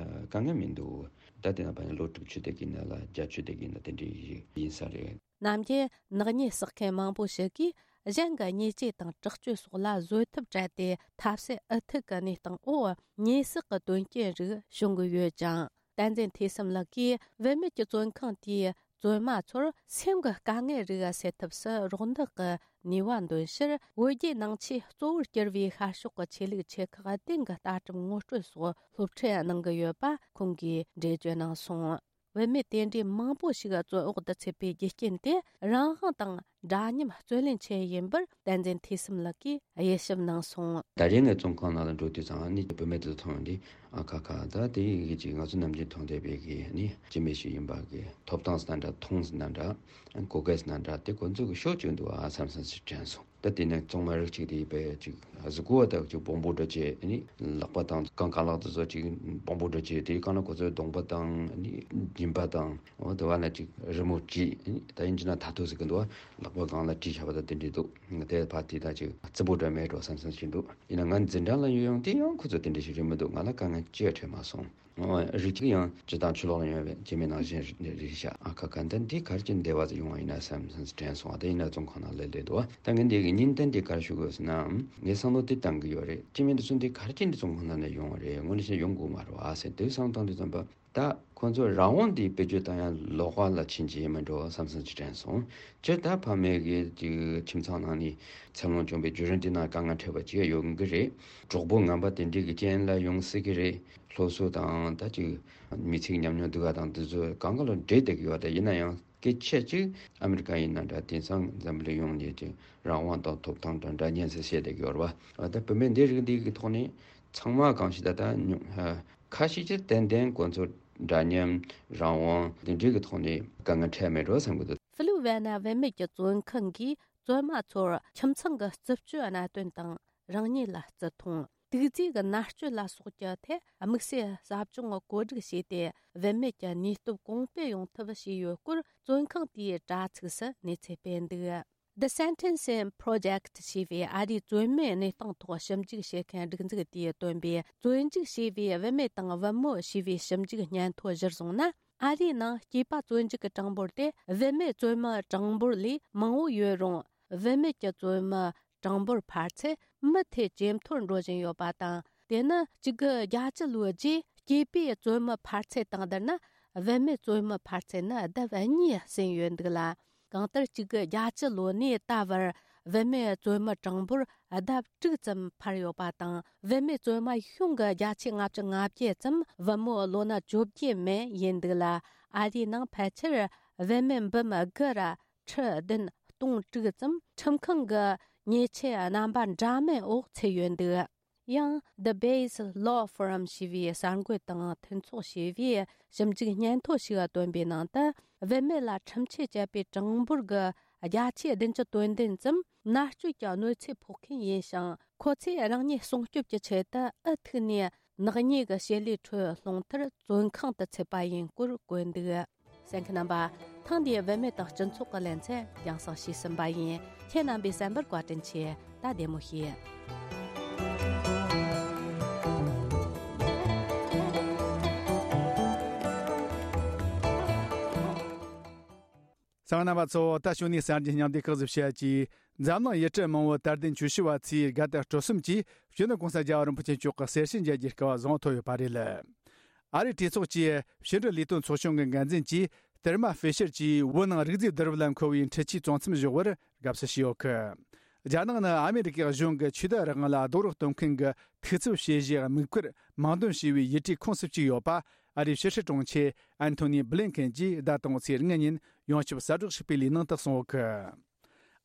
དཀའ་ངལ་མི་འདུག་ད་དེ་ནང་ཕན་ལོ་དྲུག་ཅུ་དེ་གི་ནང་ལ་བརྒྱད་ཅུ་དེ་གི་ནང་དེ་འདྲའི་ཡིན་ས་རེད། ནམ་རྒྱུན་ནག་ཉེས་བསགས་མཁན་མང་པོ་ཞིག་གིས་གཞན་གྱི་ཉེས་ཆད་དང་དྲག་སྤྱོད་སོགས་ལ་བཟོད་ཐབས་བྲལ་ཏེ་ཐབས་ཟད་ཨུ་ཐུག་གི་གནས་སྟངས་འོག་ཉེས་བསགས་ཀྱི་དོན་རྐྱེན་རིགས་བྱུང་གི་ཡོད་ཅིང་། བསྟན་འཛིན་ཐོས་བསམ་ལགས་ཀྱིས་བུད་མེད་ཀྱི་བཙོན་ཁང་དེས་བཙོན་མ་ཚོར་སེམས་ཀྱི་དཀའ་ངལ་རིགས་སེལ་ཐབས་སུ་རོགས་འདེགས་ཀྱི་ནུས་པ་འདོན་ཕྱིར། བོད་བརྒྱུད་ནང་ཆོས་གཙོ་བོར་གྱུར་པའི་ཤར་ཕྱོགས་ཀྱི་ཆོས་ལུགས་ཆེ་ཁག་བདུན་གྱི་ལྟ་གྲུབ་ངོ་སྤྲོད་སོགས་སློབ་ཁྲིད་གནང་གི་ཡོད་པ་ཁོང་གིས་འགྲེལ་བརྗོད་གནང་སོང་། བུད་མེད་དེ་འདྲའི་མང་པོ་ཞིག་བཙོན་འོག་ཏུ་ཚུད་པའི་རྒྱུ་རྐྱེན་དེ་རང་དབང་དང་འདྲ་མཉམ་རྩོད་ལེན་ཆེད་ཡིན་པར་བསྟན་འཛིན་ཐོས་བསམ་ལགས་ཀྱིས་དབྱེ་ཞིབ་གནང་སོང་། ད་རེས་ངས་བཙོན་ཁང་ནང་ལ་འགྲོ་དུས་ཙང་ནི་བུད་མེད་དེ་མཐོང་དུས་ཨ་ཁ་ཁ། ད་དེ་ཡི་གེ་ཅིག་ང་ཚོ་ནམ་རྒྱུན་མཐོང་བསྡད་པའི་གི་ནི་སྐྱེ་དམན་ཞིག་ཡིན་པ་གི་ཐོབ་ཐང་ཟེར་ན་འདྲ། མཐོང་ཟེར་ན་འདྲ། གོ་སྐལ་ཟེར་ན་འདྲ། དེ་ཁོ་ཚོ་གི་ཤོར་བཅུག་འདུག་ཨ་བསམ་བསམ་ཞིག་དྲན་སོང་། ད་དེ་ནས་བཙོན་མ་རིགས་གཅིག་དེ་ཡིན་པས་ཅིག་གཟུགས་པོ་དག་ཅིག་སྦོམ་པོ་འདྲ་བྱས་ནི་ལག་པ་དང་རྐང་རྐང་ལག་དེ་ཚོ་ཅིག་སྦོམ་པོ་འདྲ་བྱས། དེའི་སྒང་ལ་ཁོ་ཚོའི་གདོང་པ་དང་ནི་མཇིང་པ་དང་འོ་དེ་བ་ལ་ཅིག་རི་མོ་བྲིས། ད་ཡིན་གྱི་ན་ཐ་ཐོ་ཟེར་གི་འདུག་བ། ལག་པ་སྒང་ལ་བྲིས་བཞག་པ་དང་དེ་འདྲ་འདུག་དེ་ཕ་དེ་ད་ཅིག་རྩུབ་པོ་འདྲ་མེད་འགྲོ་བསམ་བསམ་ཞིག་འདུག་ཡིན་ན་ང་འཛིན་གྲྭ་ལ་ཡོད་ཡོང་དེ་ཡང་ཁོ་ཚོ་དེ་འདྲ་ཞིག་རེད་མི་འདུག་ང་ལ་དཀའ་ངལ་ཅི་ཡང་འཕྲད་མ་སོང་། རིགས་གཅིག་ཡང་སྤྱི་དང་ཆུ་ལོག་ལ་ཡོང་བའི་སྐྱེ་དམན་ནང་བཞིན་རེད་ཤག་ཨ་ཁ་ཁ། འདི་འདི་ག་རེ་བྱས་ནས་བདེ་བ་ཡོང་བ་ཡིན་ན་བསམ་བསམ་དྲན་སོང་། ཨ་དེ་ཡིན་ན་བཙོན་ཁང་ནང་སླེབས་བསྡད་འདུག་ད་ངས་འདི་གི་ཉིན་ལྟར་འདི་ག་རེ་ཞུ་དགོས་ཟེར་ན། ངས་བསམ་བློ་འདི་བཏང་གི་ཡོད་རེད། སྐྱེ་དམན་འདི་ཚོ་འདི་ག་རེ་བྱས་ནས་བཙོན་ཁང་ནང་ནས་ཡོང་བ་རེད། དངོས་གནས་བྱས་ན་ཡོང་དགོས་མ་རེད་བ་ཟེར་དེ་བསམ་བཏང་དུས་ཙམ་པ། ད་ཁོ་ཚོ་རང་དབང་འདི་བེད་སྤྱོད་བཏང་ཡ་ལོག་པ་ལ་ཕྱིན་གྱི་ཡིན་མིན་འགྲོ་བསམ་བསམ་ཅིག་དྲན་སོང་། སྤྱིར་ད་ཕ་མེས་ཀྱི་ཅིག་ཁྱིམ་ཚང་ནང་ནས་འཚར་ལོངས་བྱུང་བའི་བརྒྱུད་རིམ་འདི་ནང་དཀའ་ངལ་འཕྲད་པ་ཅིག་ཡོང་གི་རེད། གྲོགས་པོ་ངན་པ་དེ་འདྲའི་གི་རྐྱེན་ལ་ཡོང་སྲིད་ཀྱི་རེད། སློབ་གསོ་དང་ད་ཅིག་མི་ཚེའི་ཉམས་མྱོང་འདི་ག་དང་འདི་ཚོ་གང་ག་ལ་འབྲེལ་བསྡད་ཀྱི་ཡོད་རེད། ཡིན་ན་ཡང་སྐད་ཆ་ཅིག་ཨ་མི་རི་ཀ་ཡིན་ན་འདྲ། དེང་སང་འཛམ་བུ་གླིང་ཡོངས་ནས་ཅིག་རང་དབང་དང་ཐོབ་ཐང་དང་འདྲ་མཉམ་ཟེར་བཤད་བསྡད་ཀྱི་ཡོད་རེད་བ། ད་བུད་མེད་འདི་རིགས་འདི་གི་ཐོག་ནས་ཚང་མ་གང་ཞིག་ད་ལྟ་ཉུང་ཧ། ཁ་ཤས་ཀྱིས་ཏན་ཏན་ཁོ་ཚོ་འདྲ་མཉམ་རང་དབང་དེ་འདྲའི་གི་ཐོག་ནས་དཀའ་ངལ་འཕྲད་མེད་འགྲོ་བསམ་གི་འདུག་ཧྥི་ལི་ཝེ་ན་བུད་མེད་ཀྱི་བཙོན་ཁང་གིས་བཙོན་མ་ཚོར་ཁྱིམ་ཚང་གི་རྩུབ་སྤྱོད་གནད་དོན་དང་རང་ཉིད་ལ་བརྩི་མཐོང་། དུག་རྫས་ཀྱི་མནར་གཅོད་ལ་སོགས་ཀྱི་ཐད་དམིགས་བསལ་ཟབ་སྦྱོང་བཀོད་སྒྲིག་བྱས་ཏེ། བུད་མེད་ཀྱི་ནུས་སྟོབས་གོང་སྤེལ་ཡོང་ཐབས་བྱས་ཡོད་སྐོར་བཙོན་ཁང་དེའི་དྲ་ཚིགས་སུ་གནས་ཚུལ་སྤེལ་འདུག The Sentencing Project ཞེས་པའི་ཨ་རིའི་བཙོན་མའི་གནས་སྟངས་ཐོག་ཞིབ་འཇུག་བྱེད་མཁན་སྒྲིག་འཛུགས་དེས་བཏོན་པའི་བཙོན་འཇུག་བྱས་པའི་བུད་མེད་དང་བུ་མོ་ཞེས་པའི་ཞིབ་འཇུག་སྙན་ཐོ་གཞིར་བཟུང་ན། ཨ་རིའི་ནང་སྐྱེས་པ་བཙོན་འཇུག་གི་གྲངས་འབོར་དེ་བུད་མེད་བཙོན་མའི་གྲངས་འབོར་ལས་མང་བོ་ཡོད་རུང་། བུད་མེད་ཀྱི་བཙོན་མའི་གྲངས་འབོར་འཕར་ཚད་མུ་མཐུད་ཇེ་མཐོར་འགྲོ་བཞིན་ཡོད་པ་དང་། དེ་ནི་གཅིག་དགུ་བརྒྱད་ཅུ་ལོའི་རྗེས་སྐྱེས་པའི་བཙོན་མའི་འཕར་ཚད་དང་བསྡུར་ན། བུད་མེད་བཙོན་མའི་འཕར་ཚད་ནི་ལྡབ་གཉིས་ཟིན་ཡོད་འདུག་ལ། གང་ལྟར་གཅིག་དགུ་བརྒྱད་ཅུ་ལོ་ནས་ད་བར་བུད་མེད་བཙོན་མའི་གྲངས་འབོར་ལྡབ་དྲུག་ཙམ་འཕར་ཡོད་པ་དང་། བུད་མེད་བཙོན་མ་གཞུང་གི་བརྒྱ་ཆ་ལྔ་བཅུ་ང་བརྒྱད་ཙམ། བུ་མོ་ལོ་ན་བཅོ་བརྒྱད་མན་ཡིན་འདུག་ལ། ཨ་རིའི་ནང་ཕལ་ཆེར་བུད་མེད་འབུམ་དགུ་ར་ཁྲི་བདུན་སྟོང་དྲུག་ཙམ་ཁྲིམས་ཁང་གི་ཉེས་ཆད་རྣམ་པ་འདྲ་མིན་འོག་ཚུད་ཡོད་འདུག་ཡང་། The Base Law Forum ཞེས་པའི་གསར་འགོད་དང་མཐུན་ཚོགས་ཞེས་པའི་ཞིབ་འཇུག་སྙན་ཐོ་ཞིག་བཏོན་པའི་ནང་དུ། བུད་མེད་ལ་ཁྲིམས་ཆད་བཅད་པའི་གྲངས་འབོར་གྱི་བརྒྱ་ཆ་བདུན་ཅུ་དོན་བདུན་ཙམ་མནར་གཅོད་ཀྱི་གནོད་འཚེ་ཕོག་མཁན་ཡིན་ཞིང་། ཁོ་ཚོས་རང་ཉིད་སྲུང་སྐྱོབ་ཀྱི་ཆེད་དུ་ཨུ་ཐུག་ནས་ནག་ཉེས་ཀྱི་བྱེད་ལས་ཁྲོད་ལྷུང་མཐར་བཙོན་ཁང་དུ་ཚུད་པ་ཡིན་སྐོར་བཀོད་འདུག་གསན་མཁན་རྣམ་པ། ཐེངས་འདིའི་བུད་མེད་དང་སྤྱི་ཚོགས་ཀྱི་ལེ་ཚན་རྒྱང་སྲིང་ཞུས་ཟིན་པ་ཡིན། ཁྱེད་རྣམ་པས་གསན་པར་བཀའ་དྲིན་ཆེ། ད་བདེ་མོ་བྱོས། གསན་མཁན་རྣམ་པ་ཚོ། ད་ཞུ་ནས་གསར་འགྱུར་སྙིང་བསྡུས་སྐབས་སུ་བཤད་ཀྱིས། འཛམ་གླིང་ཡུལ་གྲུ་མང་བོའི་དར་ལྡན་ཆོས་ཞུ་བ་ཚོས་དགའ་དད་སྤྲོ་གསུམ་གྱིས་སྤྱི་ནོར་༸གོང་ས་༸རྒྱལ་བ་རིན་པོ་ཆེ་མཆོག་གི་གསེར་ཞུན་མཇལ་རྒྱུའི་སྐལ་བ་བཟང་ཐོབ་ཡོད་པ་རེད། ཨ་རིའི་གྲོས་ཚོགས་ཀྱི་ཕྱི་འབྲེལ་ལས་དོན་ཚོགས་ཆུང་གི་འགན་འཛིན་གྱིས་ཏེར་མ་ཧྥེ་ཤར་གྱིས་བོད་ནང་རིག་རྫས་བསྡུ་རུབ་ལ་མཁོ་བའི་འཕྲུལ་ཆས་བཙོང་མཚམས་འཇོག་པར་དགའ་བསུ་ཞུས་ཡོད་གི། རྒྱ་ནག་ནི་ཨ་མེ་རི་ཀའི་གཞུང་གི་ཆོས་དད་རང་དབང་ལ་རྡོག་རོགས་གཏོང་མཁན་གྱི་ཐུགས་འཚབ་བྱེད་གཞིའི་དམིགས་བཀར་མིང་འདོན་བྱས་པའི་ཡུལ་གྲུའི་ཁོངས་སུ་བཅུག་ཡོད་པ། ཨ་རིའི་ཕྱི་སྲིད་དྲུང་ཆེ་ཨན་ཐོ་ནི་བྷི་ལིན་ཀེན་གྱིས་ཟླ་དང་པོའི་ཚེས་ལྔ་ཉིན་ཡོངས་ཁྱབ་གསལ་བསྒྲགས་ཤིག་སྤེལ་བའི་ནང་དུ་གསུངས་ཡོད་གི།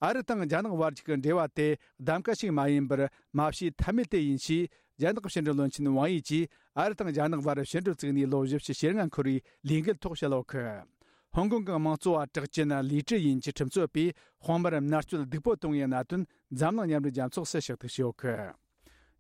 ཨ་རི་དང་རྒྱ་ནག་བར་གྱི་འབྲེལ་བ་དེ་གདམ་ག་ཞིག་མ་ཡིན་པར་མ་བྱས་ཐབས་མེད་དེ་ཡིན་ཞེས། རྒྱ་ནག་ཕྱི་འབྲེལ་བློན་ཆེན་ཝང་ཡི་གྱིས་ཨ་རི་དང་རྒྱ་ནག་བར་ཕྱི་འབྲེལ་བཙུགས་ནས་ལོ་བཞི་བཅུ་ཞེ་ལྔ་འཁོར་བའི་ལས་འགུལ་ཐོག་བཤད་ཡོད་གི། ཧོང་ཀོང་གི་དམངས་གཙོ་བ་གྲགས་ཅན་ལི་ཀྲི་ཡིན་གྱི་ཁྲིམས་རྩོད་པས་དཔོན་པོར་མནར་གཅོད་སྡུག་པོ་བཏང་བའི་གནད་དོན་འཛམ་གླིང་མཉམ་འབྲེལ་རྒྱལ་ཚོགས་སུ་ཕྱག་བསྟར་བྱས་ཡོད་གི།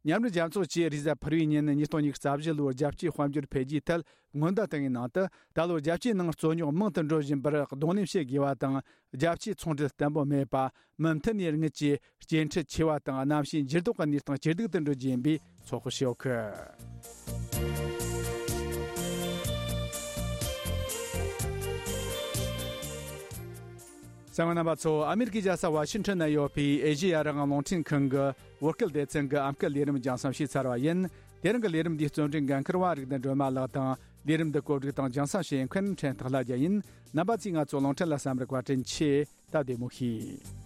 མཉམ་འབྲེལ་རྒྱལ་ཚོགས་ཀྱིས་རེས་གཟའ་ཕུར་བུའི་ཉིན་ཉིས་སྟོང་ཉི་ཤུ་རྩ་བཞི་ལོའི་རྒྱལ་སྤྱིའི་དཔལ་འབྱོར་འཕེལ་རྒྱས་ཐད་སྔོན་བརྡ་བཏང་བའི་ནང་དུ། ད་ལོ་རྒྱལ་སྤྱིའི་ནང་རྩོད་རྙོག་མང་དུ་འགྲོ་བཞིན་པར་གདོང་ལེན་བྱེད་དགོས་པ་དང་། རྒྱལ་སྤྱིའི་ཚོང་འབྲེལ་བརྟན་པོ་མེད་པ། མུ་མཐུད་ནས་དངུལ་གྱི་སྐྱེལ་འཕྲལ་ཆེ་བ་དང་། གནམ་གཤིས་འགྱུར་ལྡོག་གི་གནས་སྟངས་ཇེ་སྡུག་ཏུ་འགྲོ་རྒྱུ་ཡིན་པའི་ཚོད་དཔག་བྱས་ཡོད་གི། གསན་མཁན་རྣམ་པ་ཚོ། ཨ་མེ་རི་ཀའི་རྒྱལ་ས་ཝ་ཤིང་ཊོན་ན་ཡོད་པའི་ཨེ་ཤེ་ཡ་རང་དབང་རླུང་འཕྲིན་ཁང་གི་བོད་སྐད་སྡེ་ཚན་གྱི་ཨམ་སྐད་ལས་རིམ་རྒྱང་སྲིང་ཞུས་ཚར་བ་ཡིན། དེ་རིང་གི་ལས་རིམ་འདིའི་རྩོམ་སྒྲིག་འགན་འཁུར་བ་རིག་ལྡན་སྒྲོལ་མ་ལགས་དང་། ལས་རིམ་འདི་བཀོད་སྒྲིག་དང་རྒྱང་སྲིང་བྱེད་མཁན་ཕྲན་ཐག་ལྷ་རྒྱལ་ཡིན། རྣམ་པ་ཚོས་ང་ཚོ་རླུང་འཕྲིན་ལ་གསན་པར་བཀའ་དྲིན་ཆེ། ད་བདེ་མོ་བྱོས།